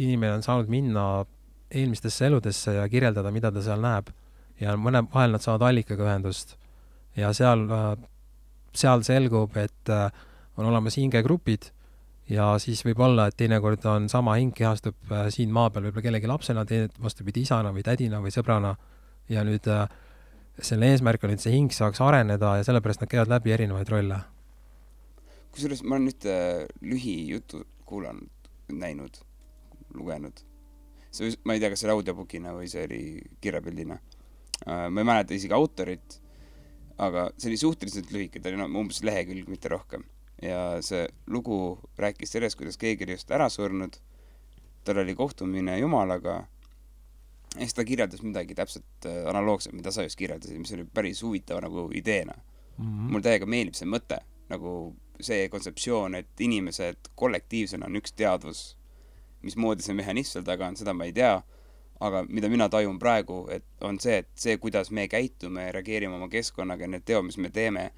inimene on saanud minna eelmistesse eludesse ja kirjeldada, mida ta seal näeb ja mõne vahel nad saavad allikaga ühendust ja seal selgub, et on olemas hingegrupid ja siis võib olla, et teinekord on sama hing kehastub siin maa peal võib-olla kellegi lapsena, vastupidi isana või tädina või sõbrana ja nüüd selle eesmärk on, et see hing saaks areneda ja sellepärast nad käivad läbi erinevaid rolle.
Kusjuures ma olen nüüd lühijutu kuulanud, näinud, lugenud. Ma ei tea, kas see oli audiobookina või see oli kirjapildina. Ma ei mäleta isegi autorit, aga see oli suhteliselt lühike, ta oli umbes lehekülg, mitte rohkem. Ja see lugu rääkis sellest, kuidas keegi oli just ära surnud, tal oli kohtumine Jumalaga Eks ta kirjeldas midagi täpselt analoogset, mida sa just kirjeldasid, mis oli päris huvitav nagu ideena. Mul täiega meeldib see mõte, nagu see kontseptsioon, et inimesed kollektiivsena on üks teadvus, mismoodi see mehhanism seal taga on, seda ma ei tea, aga mida mina tajun praegu, et on see, et see, kuidas me käitume ja reageerime oma keskkonnaga ja need teod, mis me teeme,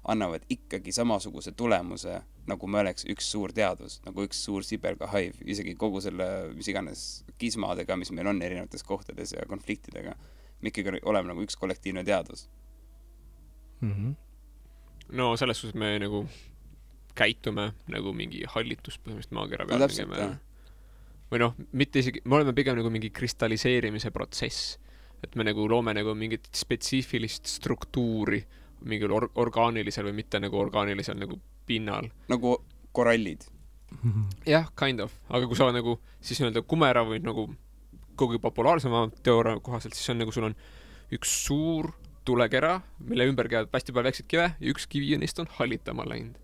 annavad ikkagi samasuguse tulemuse, nagu me oleks üks suur teadvus, nagu üks suur sibelgahaiv, isegi kogu selle, mis iganes kismadega, mis meil on erinevates kohtades ja konfliktidega. Me ikkagi oleme nagu üks kollektiivne teadvus.
No selles suhtes me nagu käitume nagu mingi hallitus põhimõtteliselt maakera peal.
No täpselt,
või noh, mitte isegi, me oleme pigem nagu mingi kristalliseerimise protsess, et me nagu loome nagu mingit spetsiifilist struktuuri mingil orgaanilisel või mitte nagu orgaanilisel nagu pinnal.
Nagu korallid.
Jah, kind of. Aga kui sa nagu siis nii-öelda kumera või nagu kogu populaarsema teooria kohaselt, siis on nagu sul on üks suur tulekera, mille ümber käivad hästi palju väiksed kive ja üks kivi neist on hallitama läinud.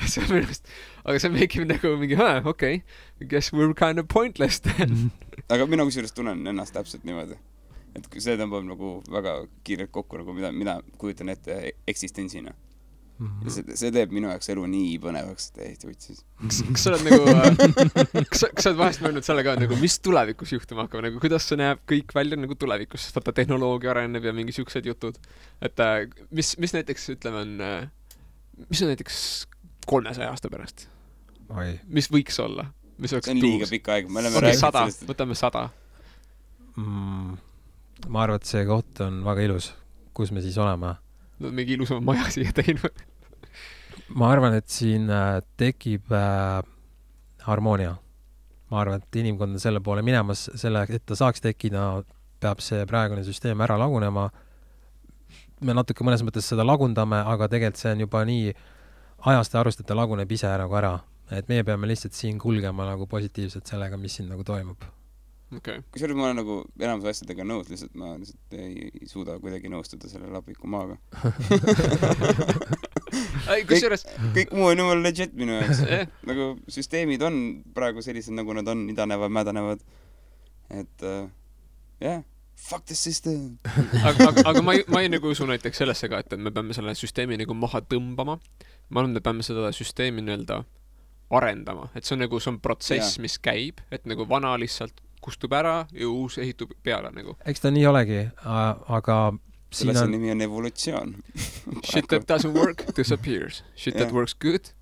See on minu arust, aga see meikib nagu mingi, okei, guess we're kind of pointless then.
Aga mina kusjuures tunnen ennast täpselt niimoodi. Et see tõmbab nagu väga kiirelt kokku, nagu mida kujutan ette eksistentsina. See teeb minu jaoks elu nii põnevaks, et Eesti võtsis.
Kas sa oled nagu, kas sa oled vahest mõelnud selle ka, nagu, mis tulevikus juhtuma hakkab, nagu kuidas see näeb kõik välja nagu tulevikus, sest vaata tehnoloogia areneb ja mingi siuksed jutud. Et mis näiteks, ütleme, mis on näiteks 300 aasta pärast? Mis võiks olla? Mis
see on liiga pikk aeg.
Võtame 100.
Ma arvan, et see koht on väga ilus, kus me siis oleme.
No, mingi ilusama maja siia teinud.
Ma arvan, et siin tekib harmoonia. Ma arvan, et inimkond on selle poole minemas, et ta saaks tekkida, peab see praegune süsteem ära lagunema. Me natuke mõnes mõttes seda lagundame, aga tegelikult see on juba nii ajast ja arust, et ta laguneb ise nagu ära. Et meie peame lihtsalt siin kulgema nagu positiivselt sellega, mis siin nagu toimub.
Okay.
Kusjuures ma olen nagu enamus asjadega nõus, lihtsalt ma lihtsalt ei suuda kuidagi nõustuda selle lapiku maaga. kõik muu on jumal legit minu jaoks. Nagu süsteemid on praegu sellised, nagu nad on, idanevad, mädanevad. Et fuck the system.
aga ma ei nagu usu näiteks sellesse ka, et me peame selle süsteemi nagu maha tõmbama. Ma arvan, me peame seda süsteemi nii-öelda arendama. Et see on protsess, mis käib, et nagu vana lihtsalt kustub ära ja uus ehitub peale nagu.
Eks ta nii olegi, aga
selle see nimi on evolutsioon.
Shit that doesn't work disappears. Shit that works good,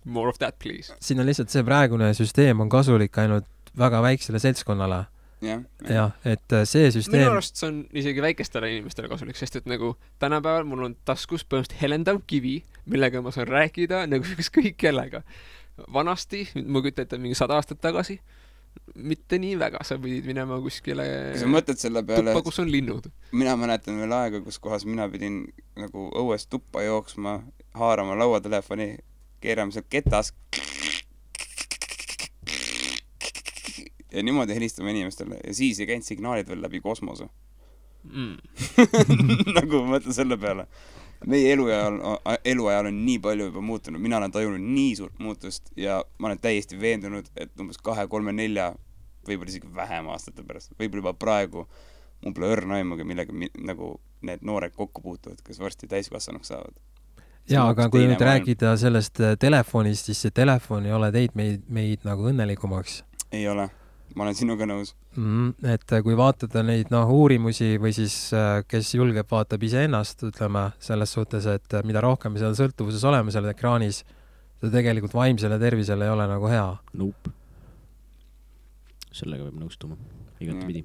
more of that please.
Siin on lihtsalt see praegune süsteem on kasulik ainult väga väiksele seltskonnale. Jah, et see süsteem...
Minu arust see on isegi väikestele inimestele kasulik, sest et nagu tänapäeval mul on taskus põhimõtteliselt helendav kivi, millega ma saan rääkida nagu kõik kellega. Vanasti, ma kütta ette mingi 100 aastat tagasi, mitte nii väga, sa pidid minema kuskile tuppa, kus on linnud.
Mina mäletan veel aega, kus kohas mina pidin nagu õues tuppa jooksma, haarama lauatelefoni, keerama seal ketas ja niimoodi helistama inimestele ja siis ei käinud signaalid veel läbi kosmose. Nagu ma mõtlen selle peale. Meie eluajal on nii palju juba muutunud, mina olen tajunud nii suurt muutust ja ma olen täiesti veendunud, et umbes 2, 3, 4 võib-olla isegi vähem aastate pärast, võib-olla juba praegu mul pole õrna aimugi, millega nagu need noored kokku puutuvad, kes varsti täiskasvanuks saavad.
Jaa, aga kui nüüd rääkida sellest telefonist, siis see telefon ei ole teid meid nagu õnnelikumaks.
Ei ole. Ma olen sinuga nõus.
Et kui vaatada neid uurimusi või siis kes julgeb vaatab ise ennast, ütleme selles suhtes, et mida rohkem me seal sõltuvuses oleme seal ekraanis, ta tegelikult vaimsele tervisele ei ole nagu hea.
Nope. Sellega peab nõustuma. Igati pidi.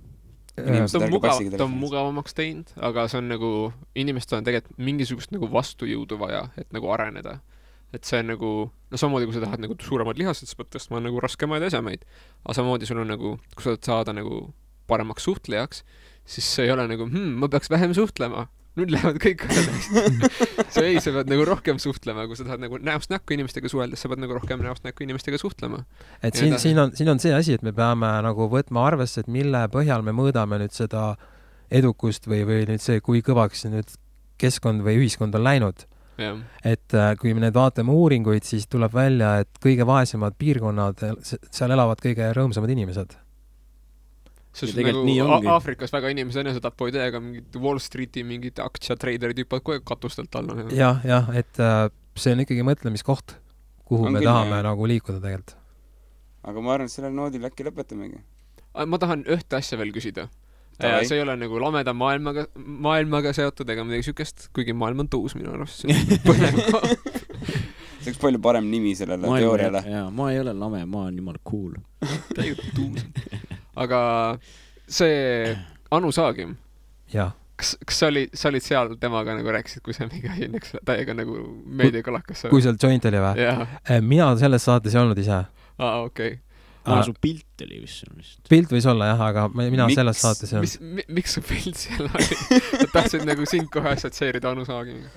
Ta on mugavamaks teinud, aga see on nagu, inimestel on tegelikult mingisugust nagu vastujõudu vaja, et nagu areneda. Et see on nagu, no samamoodi, kui sa tahad nagu suuremad lihased, sa pead tõstma nagu raskemaid asjamaid. Aga samamoodi sul on nagu, kui sa saada nagu paremaks suhtlejaks, siis see ei ole nagu, ma peaks vähem suhtlema. Nüüd lähevad kõik asjad. Sa pead nagu rohkem suhtlema, kui sa tahad nagu näost näkku inimestega suheldes, sa pead nagu rohkem näost näkku inimestega suhtlema.
Et siin on see asi, et me peame nagu võtma arvesse, et mille põhjal me mõõdame nüüd seda edukust või nüüd see, kui kõvaks nüüd keskkond või ühiskond on läinud.
Ja.
Et kui me need vaatame uuringuid, siis tuleb välja, et kõige vaesemad piirkonnad, seal elavad kõige rõõmsamad inimesed.
sest nagu Aafrikas väga inimesed enesetapu ei tee, aga mingid Wall Streeti mingid aktsiatreiderid hüppavad kogu aeg katustelt alla.
jah, et see on ikkagi mõtlemiskoht, kuhu me tahame nagu liikuda tegelikult.
Aga ma arvan, et sellel noodil äkki lõpetamegi.
Ma tahan ühte asja veel küsida. See ei ole nagu lameda maailmaga seotud ega midagi sükest, kuigi maailm on tuus minu arust.
See oleks palju parem nimi sellele teooriale.
Ma ei ole lame, ma olen jumala cool.
Täiega tuus. Aga see Anu Saagim, kas sa olid seal temaga nagu rääkisid, kui see mingi asi täiega nagu meediakalakas?
Kui seal joint oli või? Mina selles saates ei olnud ise.
Okei.
Su pilt oli vist.
Pilt võis olla jah, aga mina selles saates ei
olnud. Miks su pilt seal oli? Tahtsid nagu sind kohe assotsieerida Anu Saagimiga?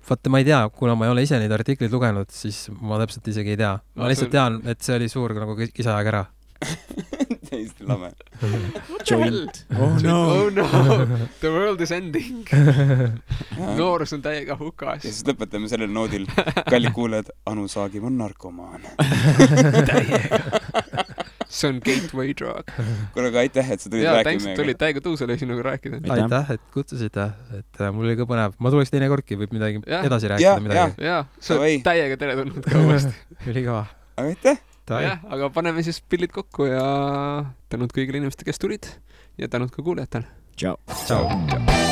Vaata, ma ei tea, kuna ma ei ole ise neid artikleid lugenud, siis ma täpselt isegi ei tea. Ma lihtsalt tean, et see oli suur nagu kisajaga ära.
Täiesti lame.
Joint.
Oh no. The world is ending. Noorus on täiega hukas.
Ja siis lõpetame sellel noodil. Kallid kuuled, Anu Saagim on narkomaan.
Täiega. See on gateway drug.
Kuule, aga aitäh, et sa tulid rääkima.
Thanks, et tulid täiega tõusele sinuga rääkida.
Aitäh, et kutsusite. Et mul oli ka põnev. Ma tuleks teine kordki, võib midagi edasi rääkida.
Ja, sa oled täiega tere tulnud ka uuesti.
Ülikava.
Aga aitäh.
Aga paneme siis pillid kokku ja tänud kõigile inimestele, kes tulid ja tänud ka kuulajatele.
Ciao.
Ciao.